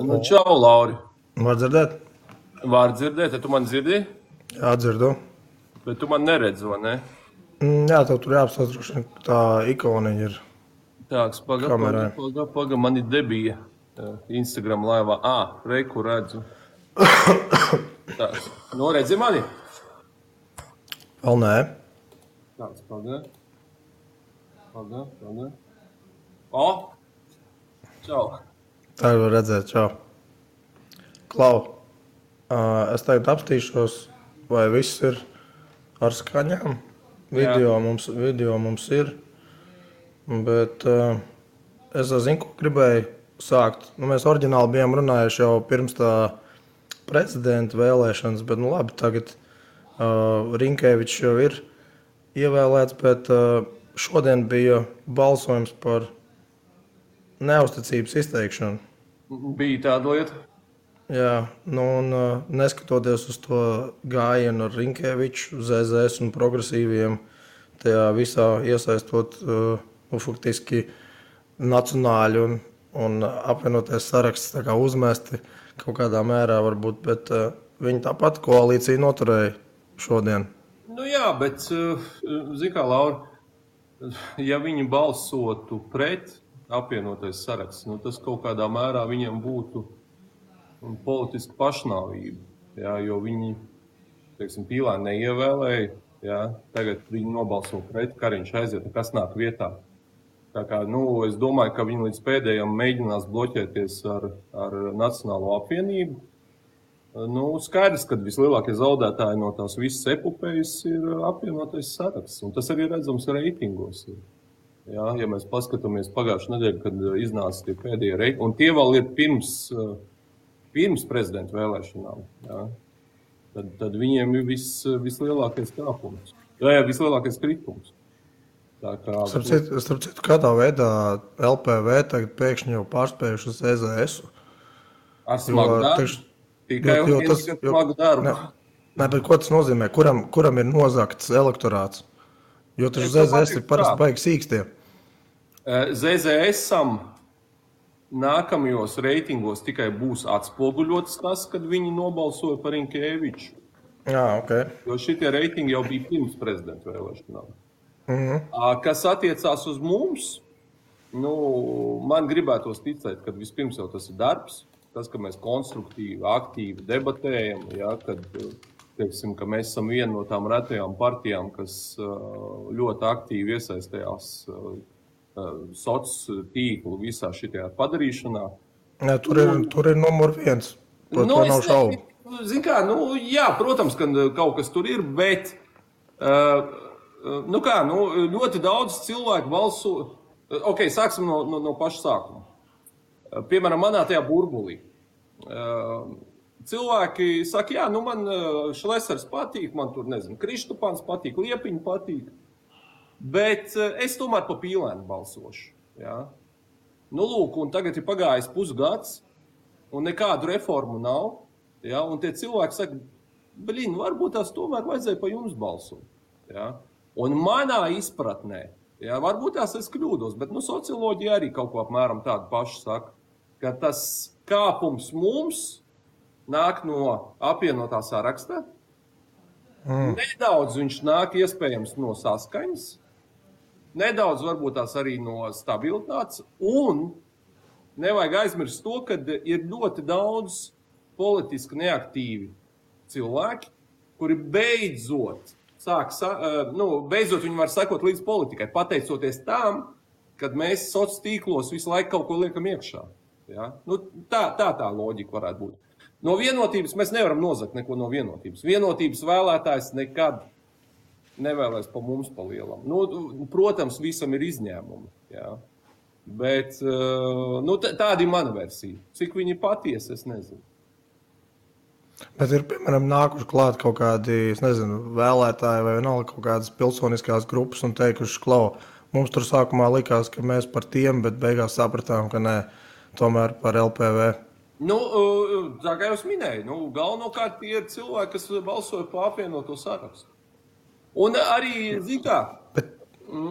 Nu, čau, Lauri. Var dzirdēt? Var dzirdēt, ja tu man dzirdi, Jā, dzirdu. bet tu man neredzi, vai ne? Jā, tev tur jāapstāsta, droši vien, ka tā ikoniņa ir Tāks, kamerā. paga, man ir debija Instagram laivā. Reiku redzu. Tāds, redzi mani? Vēl nē. Tāds, paga. Čau. Tā var redzēt, čau. Klau, es tagad apstīšos, vai viss ir ar skaņām. Video mums ir, bet es zinu, ko gribēju sākt. Mēs oriģināli bijām runājuši jau pirms tā prezidenta vēlēšanas, bet labi, tagad Rinkēvičs jau ir ievēlēts, bet šodien bija balsojums par neusticības izteikšanu. Bija tāda lieta? Jā, un neskatoties uz to gājienu ar Rinkēviču, ZZS un progresīviem, tajā visā iesaistot faktiski nacionāļu un apvienoties saraksts tā kā uzmesti kaut kādā mērā varbūt, bet viņi tāpat koalīciju noturēja šodien. Nu jā, bet, zini kā, Laura, ja viņi balsotu pret apvienotais saraksts, tas kaut kādā mērā viņiem būtu politiska pašnāvība, jā, jo viņi, teiksim, Pīlēni neievēlēja, jā, tagad viņi nobalso pret, Kariņš aiziet, kas nāk vietā. Tā kā, es domāju, ka viņi līdz pēdējiem mēģinās bloķēties ar Nacionālo apvienību. Skaidrs, ka vislielākie zaudētāji no tās visas epopējas ir apvienotais saraksts, un tas arī redzams reitingos. Jā, ja mēs paskatāmies pagājušajā nedēļā, kad iznāca tie pēdējie reitingi, un tie vēl ir pirms prezidenta vēlēšanām, jā, tad viņiem ir vislielākais kāpums, vislielākais kritums. Starp citu, kādā veidā LPV tagad pēkšņi jau pārspējuši uz EZS-u? Ar smagu darbu? Tikai smagu darbu. Nē, bet ko tas nozīmē? Kuram ir nozagts elektorāts? Jo taču ZZS ir parasti baigi sīkstie. ZZS-am nākamajos reitingos tikai būs atspoguļots tas, kad viņi nobalsoja par Rinkēviču. Jā, ok. Jo šitie reitingi jau bija pirms prezidenta vēlēšanām. Kas attiecās uz mums, man gribētos ticēt, ka vispirms jau tas ir darbs, tas, ka mēs konstruktīvi, aktīvi debatējam, ja, kad, teiksim, ka mēs esam viena no tām retajām partijām, kas ļoti aktīvi iesaistējās sociālo tīklu visā šitajā padarīšanā. Jā, tur ir numur 1. To nav šaubu. Zin kā, jā, protams, ka kaut kas tur ir, bet ļoti daudz cilvēku balso. Ok, sāksim no paša sākuma. Piemēram, manā tajā burbulī. Cilvēki saka, jā, man Šlesers patīk, man tur, Kristupāns patīk, Liepiņa patīk, bet es tomēr pa Pīlēnu balsošu. Jā. Lūk, un tagad ir pagājis pusgads, un nekādu reformu nav, jā, un tie cilvēki saka, varbūt tās tomēr vajadzēja pa jums balsot. Jā. Un manā izpratnē, jā, varbūt tās es kļūdos, bet socioloģija arī kaut ko apmēram tādu pašu saka, ka tas kāpums mums nāk no apvienotā saraksta. Nedaudz viņš nāk iespējams no saskaņas, nedaudz varbūt tās arī no stabilitātes, un nevajag aizmirst to, ka ir ļoti daudz politiski neaktīvi cilvēki, kuri beidzot viņi var sekot līdz politikai, pateicoties tam, kad mēs sociālos tīklos visu laiku kaut ko liekam iekšā. Ja? Tā loģika varētu būt. No vienotības mēs nevaram nozagt neko no vienotības. Vienotības vēlētājs nekad nevēlēs pa mums pa lielam. Protams, visam ir izņēmumi. Ja? Bet tāda ir mana versija. Cik viņi patiesi, es nezinu. Bet ir, piemēram, nākuši klāt kaut kādi, vēlētāji vai vienalga kaut kādas pilsoniskās grupas un teikuši, mums tur sākumā likās, ka mēs par tiem, bet beigās sapratām, ka nē, tomēr par LPV. Tā kā jau es minēju, galvenokārt tie ir cilvēki, kas balsoja pa apvienoto sarakstu. Un arī,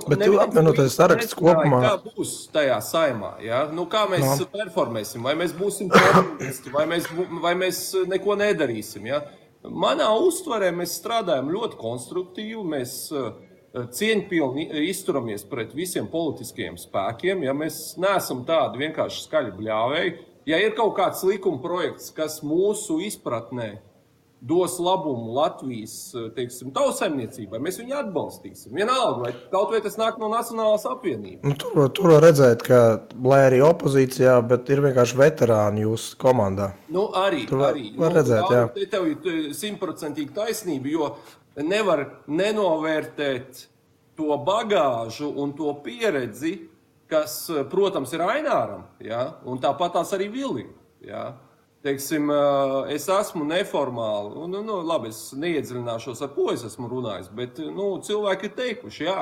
Bet tu apvienotais saraksts kopumā. Kā būs tajā saimā? Ja? Nu, kā mēs performēsim? Vai mēs būsim populisti, vai mēs neko nedarīsim? Ja? Manā uztverē mēs strādājam ļoti konstruktīvi, mēs cieņpilni izturamies pret visiem politiskajiem spēkiem. Ja? Mēs neesam tādi vienkārši skaļi bļāvēji. Ja ir kaut kāds likuma projekts, kas mūsu izpratnē dos labumu Latvijas, teiksim, tautsaimniecībai, mēs viņu atbalstīsim. Vienalga, vai kaut vai tas nāk no Nacionālās apvienības. Nu, tur var redzēt, ka, lai arī opozīcijā, bet ir vienkārši veterāni jūsu komandā. Nu, arī. Var redzēt, jā. Tev ir 100% taisnība, jo nevar nenovērtēt to bagāžu un to pieredzi, kas, protams, ir Aināram, ja? Un tāpat tās arī Vilim, ja? Teiksim, es esmu neformāli, labi, es neiedziļināšos, ar ko es esmu runājis, bet cilvēki ir teikuši, jā,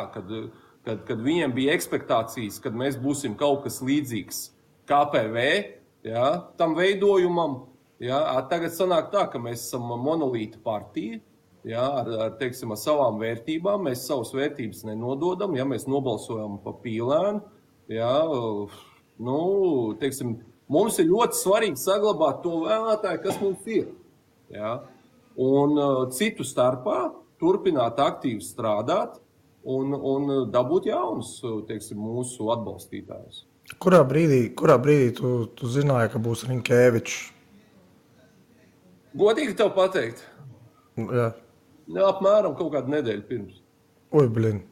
kad viņiem bija ekspektācijas, kad mēs būsim kaut kas līdzīgs KPV, jā, tam veidojumam, jā, tagad sanāk tā, ka mēs esam monolīta partija, jā, teiksim, ar savām vērtībām, mēs savas vērtības nenododam, ja mēs nobalsojam pa pīlēnu, jā, teiksim, mums ir ļoti svarīgi saglabāt to vēlētāju, kas mums ir. Ja? Un citu starpā turpināt aktīvi strādāt un dabūt jaunus, teiksim, mūsu atbalstītājus. Kurā brīdī tu zināji, ka būs Rinkēvičs? Godīgi tev pateikt? Jā. Apmēram kaut kādu nedēļu pirms. Oi, blin.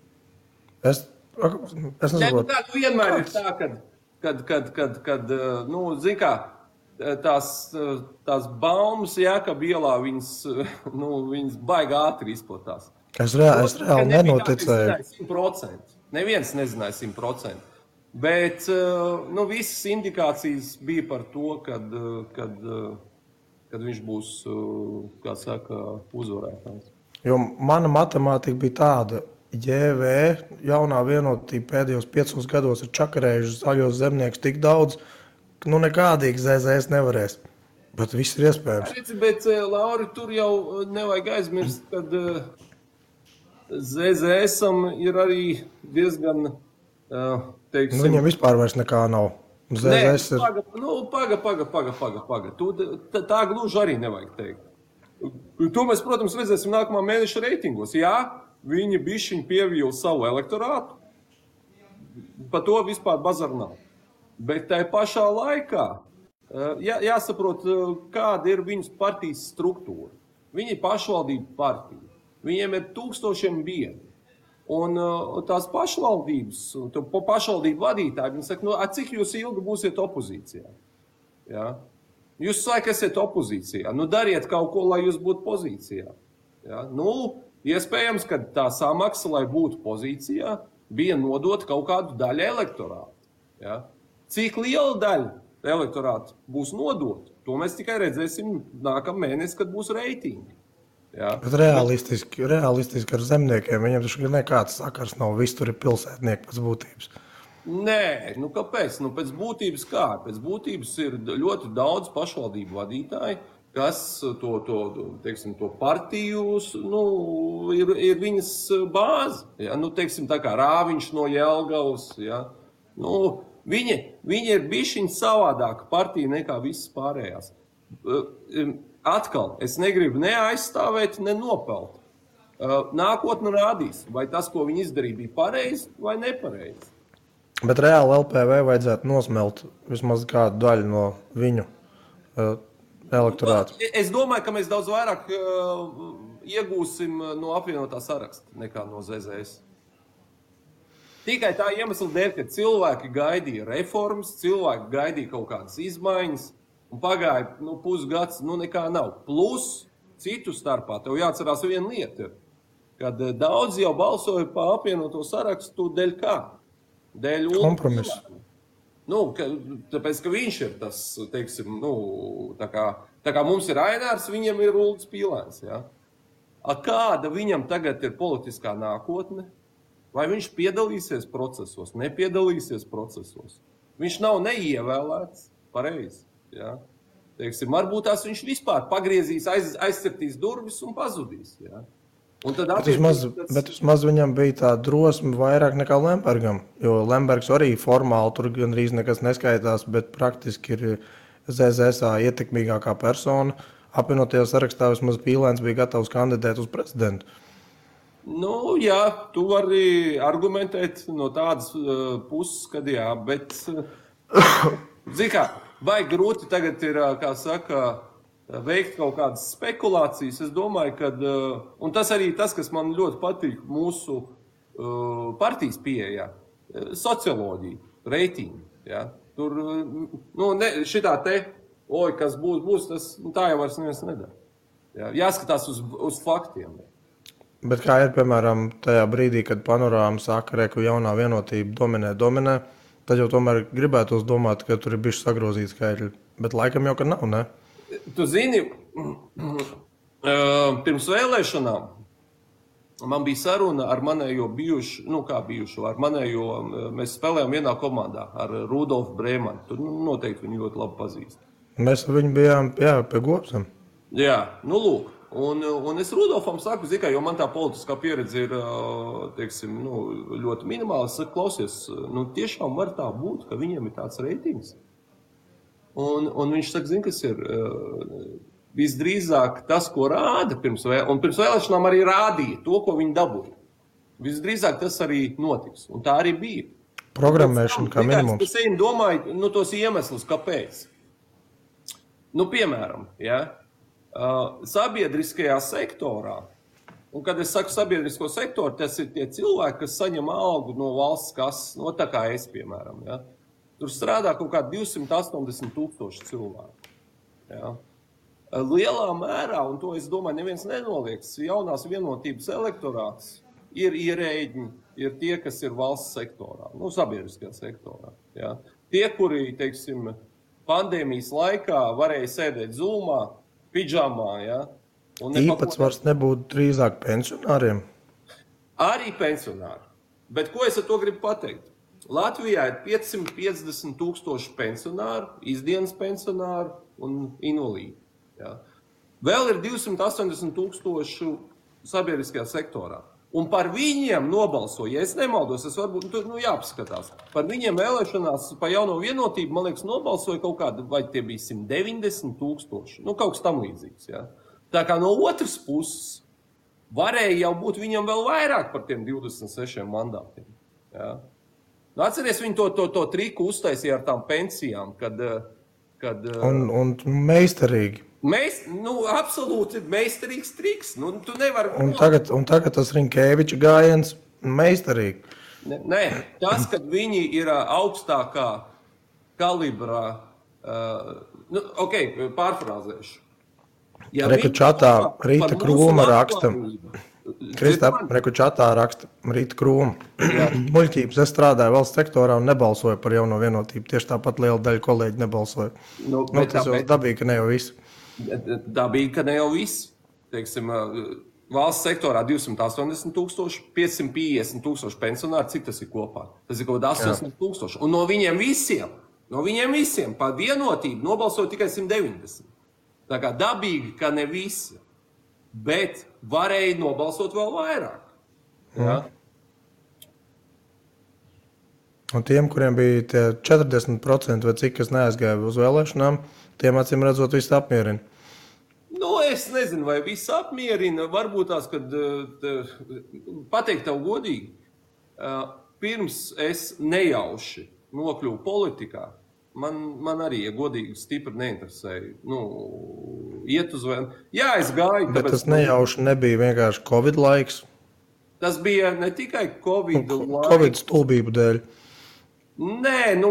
Es nesaprotu. Tā vienmēr ir tā, kad zin kā, tās baumas Jēkaba ielā, viņas baigi ātri izplatās. Es reāli nenoticēju. Neviens nezināja 100%. Bet, visas indikācijas bija par to, kad viņš būs, kā saka, uzvarētājs. Jo mana matemātika bija tāda, JV, jaunā vienotība pēdējos 5 gados ir čakarējuši zaļos zemniekus tik daudz, ka nekādīgi ZZS nevarēs. Bet viss ir iespējams. Bet, Lauri, tur jau nevajag aizmirst, kad ZZS-am ir arī diezgan, teiksim... Viņam vispār vairs nekā nav. ZZS Paga. Tā gluži arī nevajag teikt. To mēs, protams, redzēsim nākamā mēneša reitingos. Jā, viņi bišķiņ pievīla savu elektorātu, pa to vispār bazaru nav. Bet tai pašā laikā jāsaprot, kāda ir viņas partijas struktūra. Viņi ir pašvaldību partija, viņiem ir 1000 biedri. Un tās pašvaldības, pašvaldību vadītāji, viņi saka, cik jūs ilgi būsiet opozīcijā? Ja? Jūs laikam esat opozīcijā, dariet kaut ko, lai jūs būtu pozīcijā. Ja? Iespējams, ka tā samaksa, lai būtu pozīcijā, bija nodot kaut kādu daļu elektorātu. Ja? Cik liela daļa elektorāta būs nodota, to mēs tikai redzēsim nākamā mēnesi, kad būs reitingi. Ja? Bet realistiski ar zemniekiem, viņiem taču nekāds sakars nav, viss tur ir pilsētnieki pēc būtības. Nē, kāpēc? Pēc būtības kā? Pēc būtības ir ļoti daudz pašvaldību vadītāji, kas to partijus, ir viņas bāze. Ja? Teiksim, tā kā Rāviņš no Jelgavas. Ja? Viņi ir bišķiņ savādāka partija nekā visas pārējās. Atkal, es negribu neaizstāvēt, ne nopelt. Nākotne rādīs, vai tas, ko viņi izdarīja, bija pareizi vai nepareizi. Bet reāli LPV vajadzētu nosmelt vismaz kādu daļu no viņu elektorātu. Es domāju, ka mēs daudz vairāk iegūsim no apvienotā saraksta nekā no ZZS. Tikai tā iemesla dēļ, ka cilvēki gaidīja reformas, cilvēki gaidīja kaut kādas izmaiņas, un pagāja pusgads, nekā nav. Plus, citu starpā, tev jāatcerās viena lieta, kad daudz jau balsoja pa apvienoto sarakstu dēļ kā? Dēļ kompromisu. Tāpēc, ka viņš ir tas, teiksim, tā kā mums ir Ainārs, viņam ir Uldis Pīlēns. Ja? Kāda viņam tagad ir politiskā nākotne? Vai viņš piedalīsies procesos, nepiedalīsies procesos? Viņš nav neievēlēts, pareizi. Ja? Teiksim, varbūt tās viņš vispār pagriezīs, aizcirtīs durvis un pazudīs. Ja? Un tad Bet vismaz viņam bija tā drosme vairāk nekā Lembergam, jo Lembergs arī formāli tur gandrīz nekas neskaitās, bet praktiski ir ZZSA ietekmīgākā persona. Apvienotajā sarakstā vismaz Pīlēns bija gatavs kandidēt uz prezidentu. Nu, jā, tu vari argumentēt no tādas puses, kad jā, bet, zini kā, vai grūti tagad ir, kā saka, veikt kaut kādas spekulācijas. Es domāju, ka, un tas arī tas, kas man ļoti patīk mūsu partijas pieejā, socioloģija, reitingi. Ja? Tur, šitā te, kas būs, tas tā jau vairs neviens nedara. Ja? Jāskatās uz faktiem. Bet kā ir, piemēram, tajā brīdī, kad Panorāma saka, ka jaunā vienotība dominē, tad jau tomēr gribētos domāt, ka tur ir bijuši sagrozīti skaitļi. Bet laikam jau, ka nav, ne? Tu zini, pirms vēlēšanām man bija saruna ar manējo ar manējo, mēs spēlējām vienā komandā ar Rudolfu Brēmanu. Tu noteikti viņu ļoti labi pazīst. Mēs ar viņu bijām, pie Gopsam. Jā, lūk. Un es Rudolfam saku, jo man tā politiskā pieredze ir, teiksim, ļoti minimāla. Es saku, klausies, tiešām var tā būt, ka viņiem ir tāds reitings. Un viņš saka, zini, kas ir visdrīzāk tas, ko rāda pirms vēlēšanām arī rādīja to, ko viņi dabūja. Visdrīzāk tas arī notiks. Un tā arī bija. Programmēšana kā minimums. Es domāju, tos iemeslus, kāpēc. Piemēram, sabiedriskajā sektorā, un kad es saku sabiedrisko sektoru, tas ir tie cilvēki, kas saņem algu no valsts kases, tā kā es, piemēram, Tur strādā kaut kādi 280,000 cilvēku. Ja. Lielā mērā, un to es domāju, neviens nenolieks, jaunās vienotības elektorāts ir ierēģi, ir tie, kas ir valsts sektorā, sabiedriskajā sektorā. Ja. Tie, kuri, teiksim, pandēmijas laikā varēja sēdēt Zoomā, pidžamā. Ja, īpatsvars nebūtu drīzāk pensionāriem? Arī pensionāri. Bet ko es ar to gribu pateikt? Latvijā ir 550,000 pensionāru, izdienas pensionāru un invalīdi. Ja. Vēl ir 280,000 sabiedriskajā sektorā. Un par viņiem nobalsoja, ja es nemaldos, varbūt jāpaskatās. Par viņiem vēlēšanās pa jauno vienotību, man liekas, nobalsoja kaut kāda, vai tie bija 190,000. Kaut kas tam līdzīgs. Ja. Tā kā no otras puses varēja jau būt viņam vēl vairāk par tiem 26 mandātiem. Ja. Atceries, viņi to triku uztaisīja ar tām pensijām, kad... Un meistarīgi. Absolūti meistarīgs triks. Tu nevari... Un tagad tas Rinkēviča gājiens meistarīgi. Nē, tas, kad viņi ir augstākā kalibrā... pārfrāzēšu. Ja Reku čatā Rīta Krūma raksta... Kristap, reku čatā raksta Rīta Krūma. Muļķības, es strādāju valsts sektorā un nebalsoju par jauno vienotību. Tieši tāpat liela daļa kolēģi nebalsoja. Tas jau dabīgi, ka ne jau visi. Dabīgi, ka ne jau visi. Teiksim, valsts sektorā 280,000, 550,000 pensionāri, cik tas ir kopā? Tas ir kaut kādā 80,000. Un no viņiem visiem par vienotību nobalsoja tikai 190. Tā kā dabīgi, ka ne visi. Bet varēja nobalsot vēl vairāk. Ja? Un tiem, kuriem bija tie 40% vai cik, kas neaizgāja uz vēlēšanām, tiem acīm redzot viss apmierina. Es nezinu, vai viss apmierina. Varbūt tās, kad pateikt tev godīgi, pirms es nejauši nokļuvu politikā, man arī, ja godīgi, stipri neinteresēja. Iet uz vēl. Jā, es gāju. Bet tas nejauši nebija vienkārši Covid laiks. Tas bija ne tikai Covid laiks. Covid stulbību dēļ. Nē,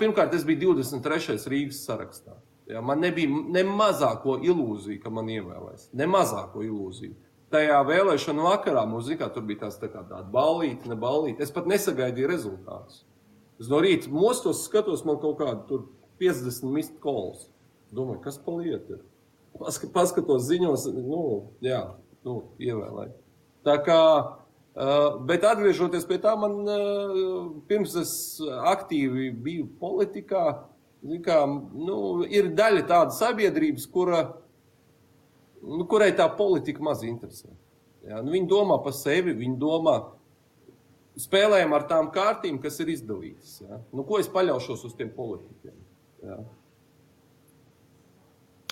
pirmkārt, es biju 23. Rīgas sarakstā. Ja, man nebija ne mazāko ilūziju, ka man ievēlēs. Ne mazāko ilūziju. Tajā vēlēšanu vakarā mums, tur bija tāda ballīte, ne ballīte. Es pat nesagaidīju rezultātus. Es no rīta mostos skatos, man kaut kādu tur 50 missed calls. Domāju, kas pa lietu ir? Paskatos ziņos, ievēlēju. Tā kā, bet atgriežoties pie tā, man pirms es aktīvi biju politikā, ir daļa tāda sabiedrības, kura kurai tā politika maz interesē. Ja? Nu, viņi domā par sevi, viņi domā, spēlējam ar tām kārtīm, kas ir izdalītas. Ja? Nu, ko es paļaušos uz tiem politikiem? Ja?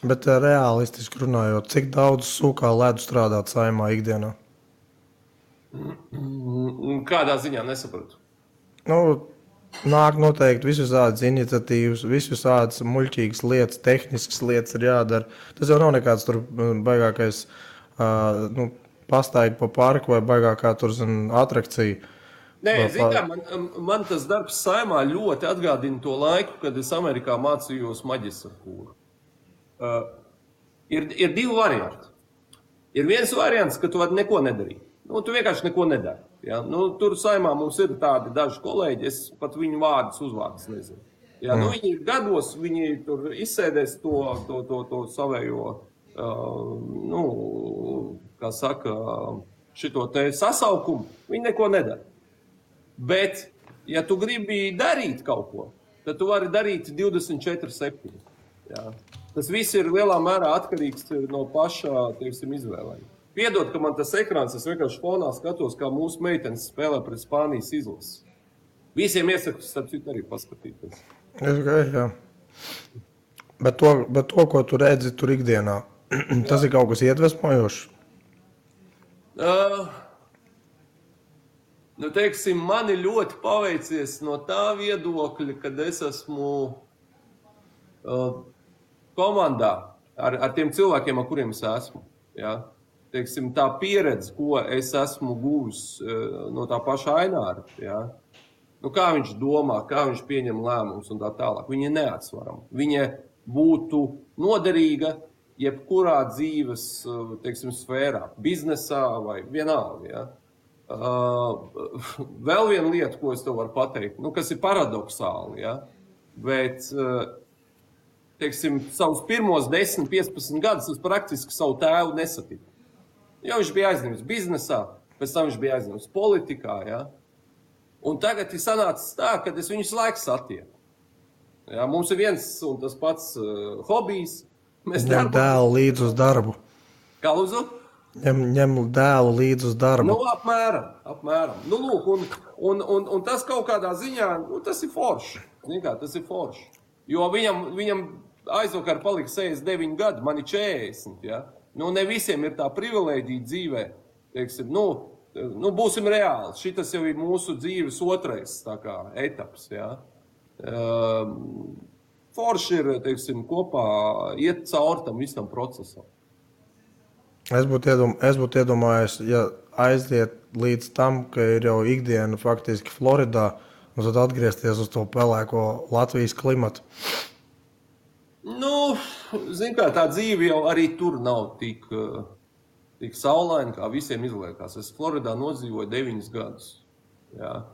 Bet realistiski runājot, cik daudz sūkā ledu strādāt Saeimā ikdienā? Kādā ziņā nesapratu? Nu, nāk noteikti visādas iniciatīvas, visādas muļķīgas lietas, tehniskas lietas ir jādara. Tas jau nav nekāds tur baigākais pastaigi pa parku vai baigākā tur atrakcija. Nē, zin kā, man tas darbs Saeimā ļoti atgādina to laiku, kad es Amerikā mācījos maģistratūru. Ir divi varianti. Ir viens variants, ka tu vari neko nedarīt. Nu, tu vienkārši neko nedari. Ja? Nu, tur Saeimā mums ir tādi daži kolēģi, es pat viņu uzvārdus nezinu. Ja? Nu, viņi ir gados, viņi tur izsēdēs to savējo, kā saka, šito te sasaukumu, viņi neko nedara. Bet, ja tu gribi darīt kaut ko, tad tu vari darīt 24/7. Ja? Tas viss ir lielā mērā atkarīgs no pašā, teiksim, izvēlēm. Piedod, ka man tas ekrāns, es vienkārši fonā skatos, kā mūsu meitenes spēlē pret Spānijas izlases. Visiem iesaku, starp citu, arī paskatīties. Jā. Bet to, ko tu redzi tur ikdienā, tas ir kaut kas iedvesmojošs? Nu, teiksim, man ir ļoti paveicies no tā viedokļa, kad es esmu komandā ar tiem cilvēkiem, ar kuriem es esmu. Ja? Teiksim, tā pieredze, ko es esmu guvis no tā paša Aināra, ja? Nu, kā viņš domā, kā viņš pieņem lēmumus un tā tālāk. Viņa ir neatsvarama. Viņa būtu noderīga jebkurā dzīves, teiksim, sfērā, biznesā vai vienalga. Ja? Vēl viena lieta, ko es tev varu pateikt, nu, kas ir paradoxāli, ja? Bet, teiksim, savus pirmos 10-15 gadus es praktiski savu tēvu nesatiku. Jo viņš bija aizņemts biznesā, pēc tam viņš bija aizņemts politikā, ja? Un tagad ir sanācis tā, ka es viņus laiku satieku. Ja? Mums ir viens un tas pats hobijs. Ņem dēlu līdz uz darbu. Kā lūdzu? Ņem dēlu līdz uz darbu. Nu, apmēram. Nu, lūk, un tas kaut kādā ziņā, nu, tas ir forši. Zin kā, tas ir forši. Jo viņam aizvakar palika 69 gadi, man ir 40, ja? Nu, ne visiem ir tā privilēģija dzīvē, teiksim, nu, būsim reāli. Šitas jau ir mūsu dzīves otrais, tā kā, etaps, ja? Forši ir, teiksim, kopā iet caur tam visam procesam. Es būtu iedomājies, ja aiziet līdz tam, ka ir jau ikdiena faktiski Floridā, un tad atgriezties uz to pelēko Latvijas klimatu. Nu, zin kā, tā dzīve jau arī tur nav tik saulaina, kā visiem izliekās. Es Floridā nodzīvoju 9 gadus. Jā.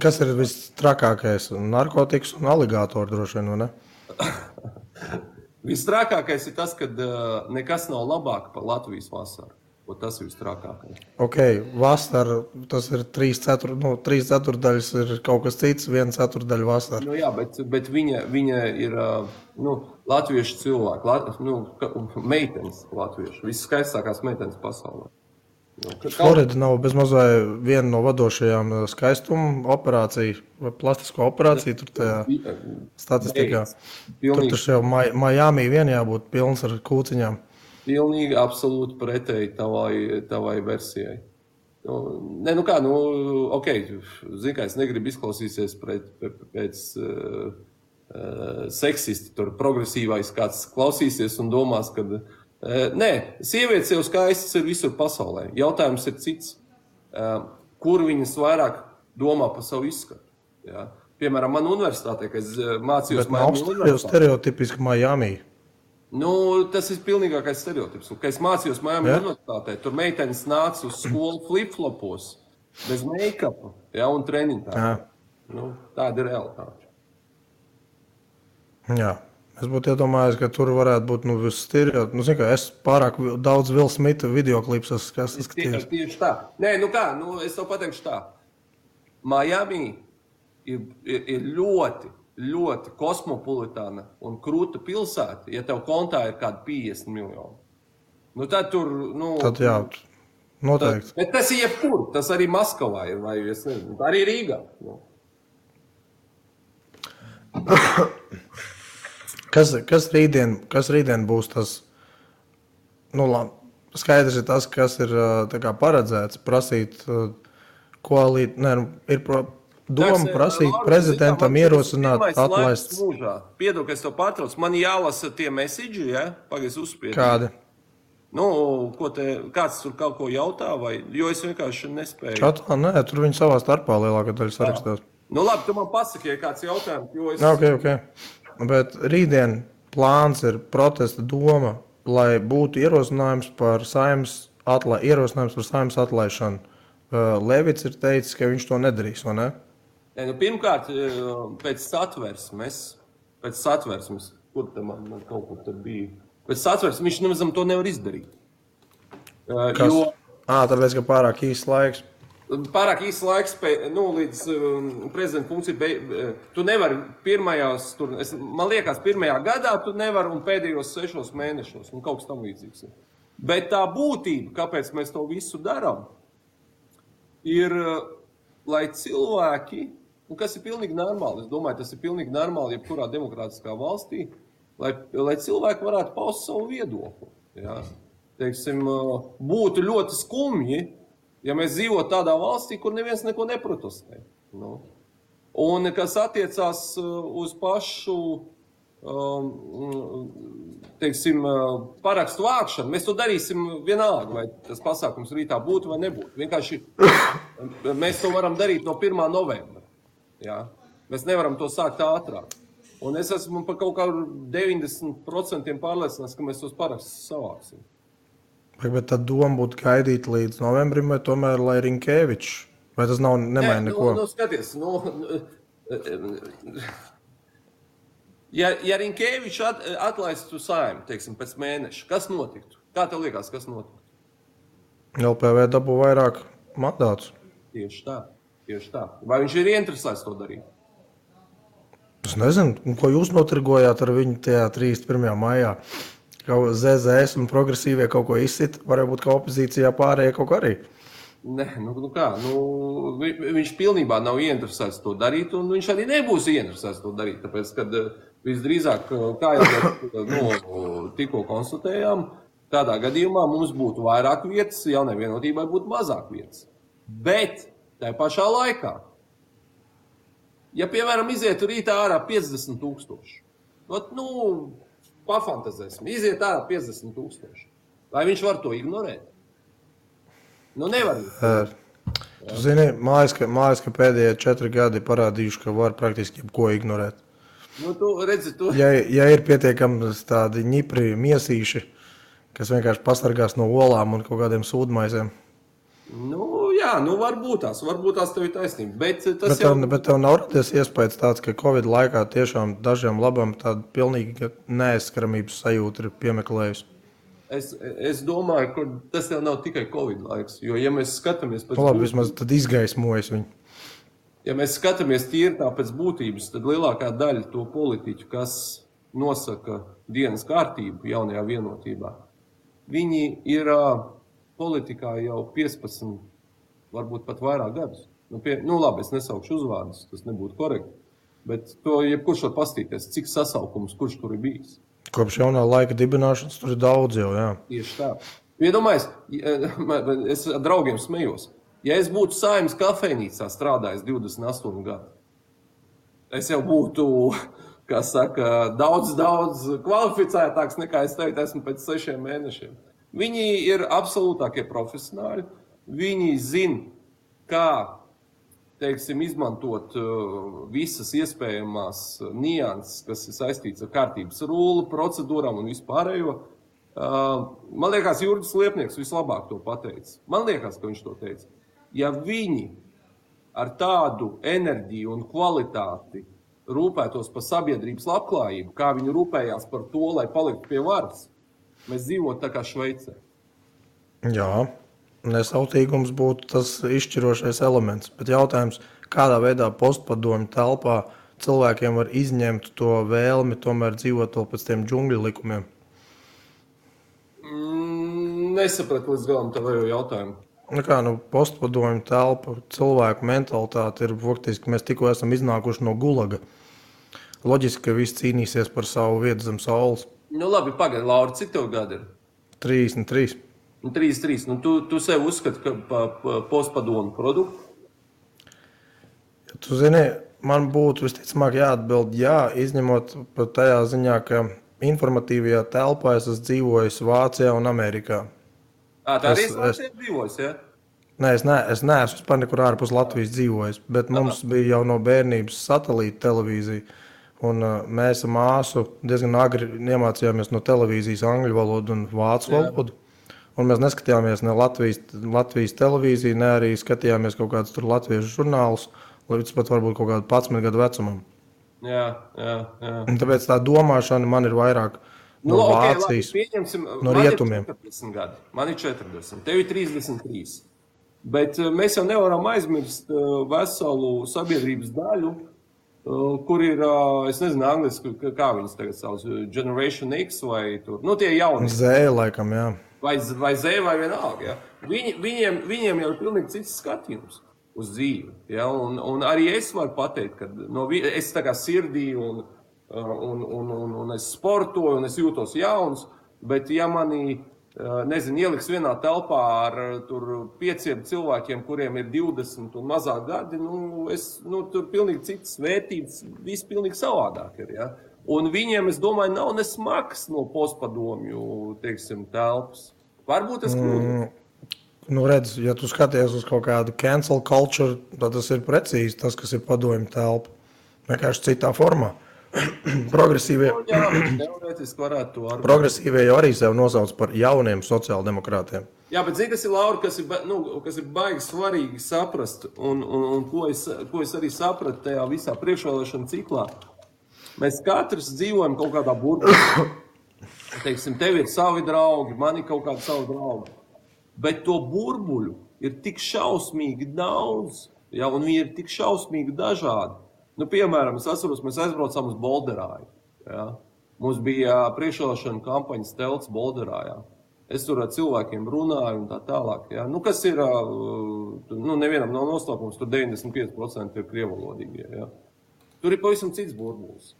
Kas ir vistrakākais? Narkotikas un aligātori droši vien, vai ne? Vistrakākais ir tas, ka nekas nav labāk par Latvijas vasaru. Tas ir vistrakākais. Ok, vasara, tas ir 3/4 ir kaut kas cits, 1/4 vasara. Nu jā, bet viņa ir latviešu cilvēki, meitenes latviešu, viskaistākās meitenes pasaulē. Florida nav bezmazai viena no vadošajām skaistuma operāciju vai plastisko operāciju tur tajā statistikā. Tur taču jau Miami vien jābūt pilns ar kūciņām. Pilnīgi absolūti pretēji tavai versijai. Ok, zin kā, es negribu izklausīsies pēc seksisti, tur progresīvais kāds klausīsies un domās, ka nē, sievietes jau skaistas ir visur pasaulē. Jautājums ir cits. Kur viņas vairāk domā par savu izskatu? Ja? Piemēram, man universitātē, kad es mācījos Miami universitātē. Bet stereotipiski Miami. Nu, tas ir pilnīgākais stereotips. Kad es mācījos Miami universitātē, tur meitenes nāca uz skolu flip-flopos, bez make-upa, ja, un treniņtā. Nu, tāda ir realitāte. Jā. Es būtu iedomājies, ka tur varētu būt stereotipi. Es pārāk daudz Will Smitha videoklips esmu skatījis. Tieši tā. Nē, es tev pateikšu tā. Miami ir ļoti, ļoti kosmopolitāna un krūta pilsēta, ja tev kontā ir kādi 50 miljoni. Nu, tad tur, Tad jā, noteikti. Bet tas ir jebkur, tas arī Maskavā ir, vai es nezinu, arī Rīgā. Kas rītdien būs tas, skaidrs ir tas, kas ir tā kā paredzēts, prasīt ir doma prasīt prezidentam ierosināt atlaist. Piedod, ka es to pārtraucu, man jālasa tie message, ja? Pagaidzi uzspiedi. Kādi? Kāds tur kaut ko jautā, vai, jo es vienkārši nespēju. Čatā, nē, tur viņi savā starpā lielākā daļa sarakstās. Labi, tu man pasaki, ja kāds jautājums, jo es... Ok. Bet rītdien plāns ir protesta doma, lai būtu ierosinājums par saimnes atlaišanu. Levits ir teicis, ka viņš to nedarīs, vai ne? Pirmkārt, pēc satversmes, kur te man kaut kur tur bija, pēc satversmes viņš nemazam to nevar izdarīt. Kas? Tāpēc, ka pārāk īsts laiks. Pārāk īsts laiks, līdz prezidenta funkcija, tu nevari man liekas, pirmajā gadā tu nevari un pēdējos 6 mēnešos, un kaut kas tam līdzīgs. Bet tā būtība, kāpēc mēs to visu darām, ir, lai cilvēki, un kas ir pilnīgi normāli, es domāju, tas ir pilnīgi normāli jebkurā demokrātiskā valstī, lai cilvēki varētu paust savu viedokli. Ja? Teiksim, būtu ļoti skumji, ja mēs dzīvotu tādā valstī, kur neviens neko neprotestē. Un kas attiecās uz pašu, teiksim, parakstu vākšanu, mēs to darīsim vienalga, vai tas pasākums rītā būtu vai nebūtu. Vienkārši mēs to varam darīt no 1. novembra. Ja? Mēs nevaram to sākt ātrāk. Un es esmu par kaut kādu 90% pārliecināts, ka mēs tos parakstus savāksim. Bet tad doma būtu gaidīt līdz novembrim, vai tomēr, lai Rinkēvičs, vai tas nemaina neko? Skaties, ja Rinkēvičs atlaistu Saeimu, teiksim, pēc mēneša, kas notiktu? Kā tev liekas, kas notiktu? LPV dabū vairāk mandātus. Tieši tā. Vai viņš ir ieinteresēts to darīt? Es nezinu, ko jūs notirgojāt ar viņu tajā 31. maijā? ZZS un progresīvie kaut ko izsit, varbūt kā opozīcijā pārējie kaut ko arī. Nē, viņš pilnībā nav ieinteresēts to darīt, un viņš arī nebūs ieinteresēts to darīt, tāpēc, kad visdrīzāk, kā jau tikko konstatējām, tādā gadījumā mums būtu vairāk vietas, jaunai vienotībai būtu mazāk vietas. Bet tajā pašā laikā, ja, piemēram, izietu rītā ārā 50 000, pafantazēsim, iziet ārā 50 000. Vai viņš var to ignorēt? Nevar. Tu zini, mājas, ka pēdējie 4 gadi parādījuši, ka var praktiski jebko ignorēt. Tu redzi, Ja ir pietiekami tādi ņipri miesīši, kas vienkārši pasargās no olām un kaut kādiem sūdmaizēm. Varbūt tās tev ir taisnība. Bet tev nav radies iespējas tāds, ka Covid laikā tiešām dažiem labam tāda pilnīga neaizskaramības sajūta ir piemeklējusi. Es domāju, ka tas jau nav tikai Covid laiks, jo, ja mēs skatāmies pēc vismaz tad izgaismojas viņu. Ja mēs skatāmies tīri tā pēc būtības, tad lielākā daļa to politiķu, kas nosaka dienas kārtību jaunajā vienotībā, viņi ir politikā jau 15, varbūt pat vairāk gadus. Labi, es nesaukšu uzvārdus, tas nebūtu korekti, bet to jebkurš var pastīties, cik sasaukums, kurš tur ir bijis. Kopš jaunā laika dibināšanas tur ir daudz jau, jā. Tieši tā. Iedomājies, es ar draugiem smejos. Ja es būtu Saeimas kafejnīcā strādājis 28 gadu, es jau būtu, kā saka, daudz kvalificētāks nekā es teicu, esmu pēc 6 mēnešiem. Viņi ir absolūtākie profesionāļi. Viņi zina, kā, teiksim, izmantot visas iespējamās nianses, kas ir saistīts ar kārtības rulli, procedūrām un vispārējo. Man liekas, Jurgis Liepnieks vislabāk to pateica. Man liekas, ka viņš to teica. Ja viņi ar tādu enerģiju un kvalitāti rūpētos par sabiedrības labklājību, kā viņi rūpējās par to, lai paliktu pie varas, mēs dzīvotu tā kā Šveicē. Jā, nesautīgums būtu tas izšķirošais elements. Bet jautājums, kādā veidā postpadomju telpā cilvēkiem var izņemt to vēlmi tomēr dzīvot vēl pēc tiem džungļu likumiem? nesapratu līdz galam tavu jautājumu. Postpadomju telpa, cilvēku mentalitāte ir faktiski, mēs tikko esam iznākuši no gulaga. Loģiski, ka visi cīnīsies par savu vietu zem saules. Labi, pagaidi, Laura, cik tev gadi ir? 33. 33. Tu sev uzskati, ka postpadomu produktu? Tu zini, man būtu visticamāk jāatbild jā, izņemot par tajā ziņā, ka informatīvajā telpā es esmu dzīvojis Vācijā un Amerikā. Tā arī Vācijā dzīvojis, ja? Nē, es neesmu vispār nekur ārpus Latvijas dzīvojis, bet mums bija jau no bērnības satelīta televīzija. Un mēs ar māsu diezgan agri iemācījāmies no televīzijas angļu valodu un vācu valodu. Un mēs neskatījāmies ne Latvijas televīziju, ne arī skatījāmies kaut kādus tur latviešu žurnālus, līdz pat varbūt kaut kādu 11 gadu vecumam. Jā. Tāpēc tā domāšana man ir vairāk no Vācijas, no rietumiem. Man ir 40, tev ir 33. Bet mēs jau nevaram aizmirst veselu sabiedrības daļu, kur ir, es nezinu, angliski, kā viņas tagad savas, Generation X vai tur, tie jauni. Z, laikam, jā. Vai Z, vai vienalga, jā. Viņiem jau ir pilnīgi cits skatījums uz dzīvi, jā, un arī es varu pateikt, ka es tā kā sirdī un es sportoju, un es jūtos jauns, bet ja mani, ieliks vienā telpā ar tur 5 cilvēkiem, kuriem ir 20 un mazāk gadi, tur pilnīgi citas vērtības, viss pilnīgi savādāk ir, ja? Un viņiem, es domāju, nav nesmaks no postpadomju, teiksim, telpas. Varbūt es kļūdu. Redz, ja tu skaties uz kaut kādu cancel culture, tad tas ir precīzi tas, kas ir padomju telpa. Vienkārši citā formā. Progresīvie jau arī sev nosauc par jauniem sociāldemokrātiem. Jā, bet zini, kas ir, Laura, kas ir baigi svarīgi saprast, un ko es arī sapratu tajā visā priekšvēlēšana ciklā. Mēs katrs dzīvojam kaut kādā burbulī. Teiksim, tev ir savi draugi, man ir kaut kādi savi draugi. Bet to burbuļu ir tik šausmīgi daudz, ja, un viņi ir tik šausmīgi dažādi. Piemēram, es atceros, mēs aizbraucām uz Bolderāju. Ja. Mums bija priekšvēlēšana kampaņas telts Bolderājā. Es tur ar cilvēkiem runāju un tā tālāk. Ja. Kas ir, nevienam nav noslēpums, tur 95% ir krievalodīgie. Ja. Tur ir pavisam cits burbulis.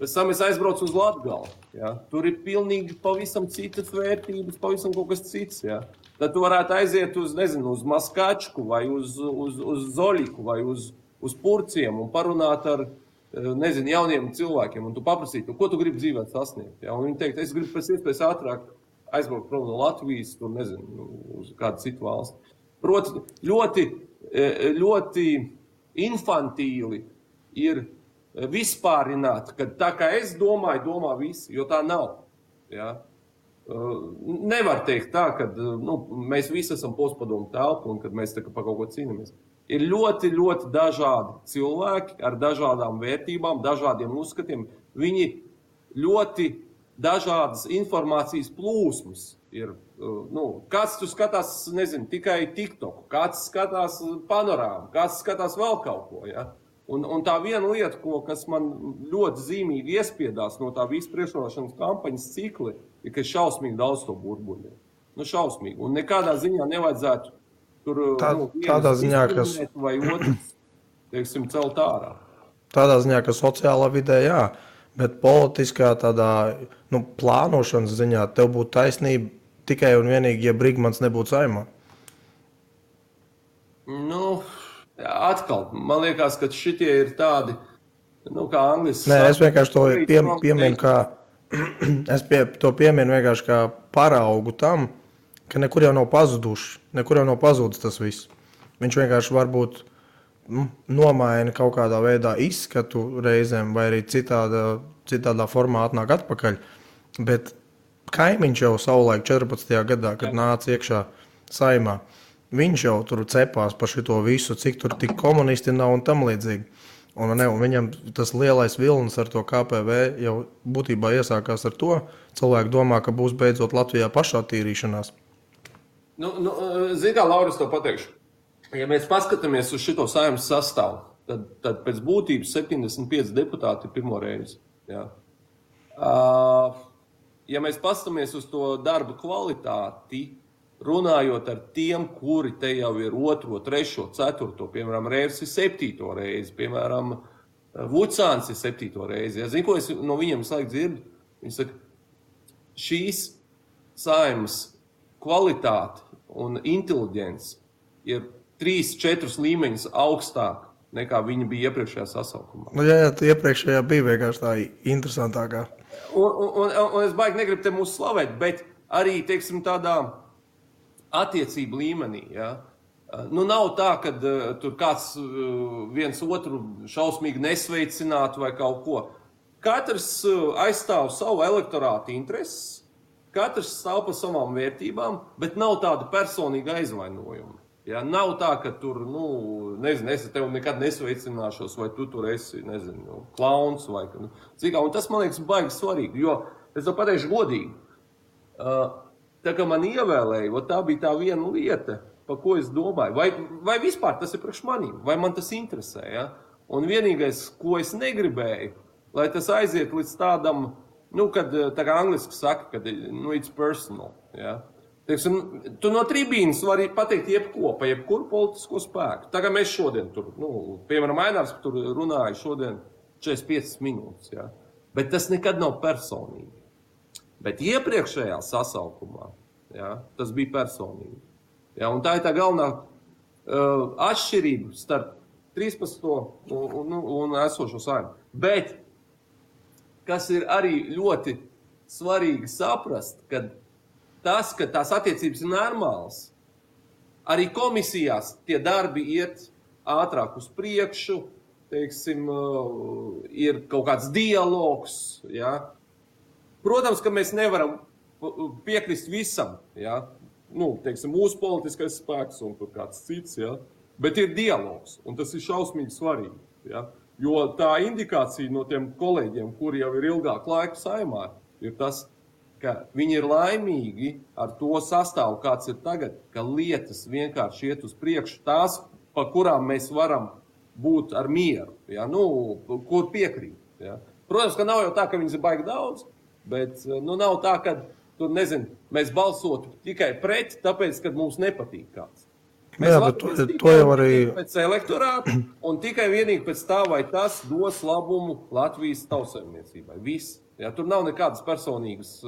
Pēc tam es aizbraucu uz Latgali. Ja. Tur ir pilnīgi pavisam citas vērtības, pavisam kaut kas cits. Ja. Tad tu varētu aiziet uz Maskačku vai uz Zoļiku vai uz Purciem un parunāt ar, jauniem cilvēkiem. Un tu paprasīt, ko tu gribi dzīvē sasniegt. Ja. Un viņi teikt, es gribu pēc iespējas ātrāk aizbraukt prom no Latvijas, tur, uz kādu citu valsti. Proti, ļoti infantīli ir vispārināt, ka tā kā es domāju, domā visi, jo tā nav. Ja? Nevar teikt tā, ka mēs visi esam postpadomu telpa un kad mēs tā kā par kaut ko cīnāmies. Ir ļoti, ļoti dažādi cilvēki ar dažādām vērtībām, dažādiem uzskatiem. Viņi ļoti dažādas informācijas plūsmas ir. Kāds tu skatās, tikai TikToku, kāds skatās panorāmu, kāds skatās vēl kaut ko, ja? Un tā viena lieta, kas man ļoti zīmīgi iespiedās no tā visu priekšvēlēšanas kampaņas cikli, ir, ka šausmīgi daudz to burbuļu. Šausmīgi. Un nekādā ziņā nevajadzētu tur tādā ziņā, kas vai otrs, teiksim, celt ārā. Tādā ziņā, ka sociālā vidē, jā, bet politiskā tādā plānošanas ziņā tev būtu taisnība tikai un vienīgi, ja Brigmans nebūtu Saeimā. Atkal, man liekas, ka šitie ir tādi, kā angliski. Nē, es vienkārši to pieminu es to pieminu vienkārši kā paraugu tam, ka nekur jau nav pazuduši, nekur jau nav pazudis tas viss. Viņš vienkārši varbūt nomaina kaut kādā veidā izskatu reizēm vai arī citādā formā atnāk atpakaļ, bet kaimiņš jau savulaik 14. gadā, kad nāca iekšā Saeimā, viņš jau tur cepās par šito visu, cik tur tik komunisti nav un tam līdzīgi. Un viņam tas lielais vilnis ar to KPV jau būtībā iesākās ar to. Cilvēki domā, ka būs beidzot Latvijā pašattīrīšanās. Zini kā, Laura, es to pateikšu. Ja mēs paskatāmies uz šito Saeimas sastāvu, tad pēc būtības 75 deputāti ir pirmo reizi. Ja. Ja mēs paskatāmies uz to darba kvalitāti, runājot ar tiem, kuri te jau ir 2, 3, 4, piemēram, Rēvs ir 7. reizi, piemēram, Vucāns ir 7. reizi. Ja, zinu, ko es no viņiem visu laiku dzirdu? Viņi saka, šīs Saeimas kvalitāte un inteliģence ir 3-4 līmeņus augstāk nekā viņi bija iepriekšējā sasaukumā. Nu, jā, iepriekšējā bija vienkārši tā interesantākā. Un es baigi negribu te mūs slavēt, bet arī, teiksim, tādā attiecību līmenī, ja? Nu, nav tā, ka tur kāds viens otru šausmīgi nesveicinātu vai kaut ko. Katrs aizstāv savu elektorātu intereses, katrs stāv par savām vērtībām, bet nav tāda personīga aizvainojuma. Ja? Nav tā, ka tur, nezinu, es tev nekad nesveicināšos, vai tu tur esi, nezinu, klauns vai cik. Un tas, man liekas, baigi svarīgi, jo es to pateikšu godīgi. Tā kā man ievēlēja, tā bija tā viena lieta, par ko es domāju. Vai vispār tas ir priekš manīm, vai man tas interesē. Ja? Un vienīgais, ko es negribēju, lai tas aiziet līdz tādam, kad tā kā angliski saka, kad it's personal. Ja? Teiksim, tu no tribīnas vari pateikt jebko, pa jebkuru politisko spēku. Tā kā mēs šodien tur, piemēram, Ainārs tur runāja šodien 45 minūtes. Ja? Bet tas nekad nav personīgi. Bet iepriekšējā sasaukumā, ja, tas bija personīgi. Ja, un tā ir tā galvenā atšķirība starp 13. un esošo Saeimu. Bet, kas ir arī ļoti svarīgi saprast, ka tās attiecības ir normālas, arī komisijās tie darbi iet ātrāk uz priekšu, teiksim, ir kaut kāds dialogs, ja. Protams, ka mēs nevaram piekrist visam, ja? Teiksim, mūsu politiskais spēks un kāds cits, ja? Bet ir dialogs, un tas ir šausmīgi svarīgi. Ja? Jo tā indikācija no tiem kolēģiem, kuri jau ir ilgāk laiku Saeimā, ir tas, ka viņi ir laimīgi ar to sastāvu, kāds ir tagad, ka lietas vienkārši iet uz priekšu, tās, pa kurām mēs varam būt ar mieru, ja? Kur piekrīt. Ja? Protams, ka nav jau tā, ka viņas ir baigi daudz, bet nav tā, ka tur, mēs balsotu tikai pret, tāpēc, ka mums nepatīk kāds. Mēs to jau arī pēc elektorāta un tikai vienīgi pēc tā, vai tas dos labumu Latvijas tautsājumniecībai. Viss. Ja, tur nav nekādas personīgas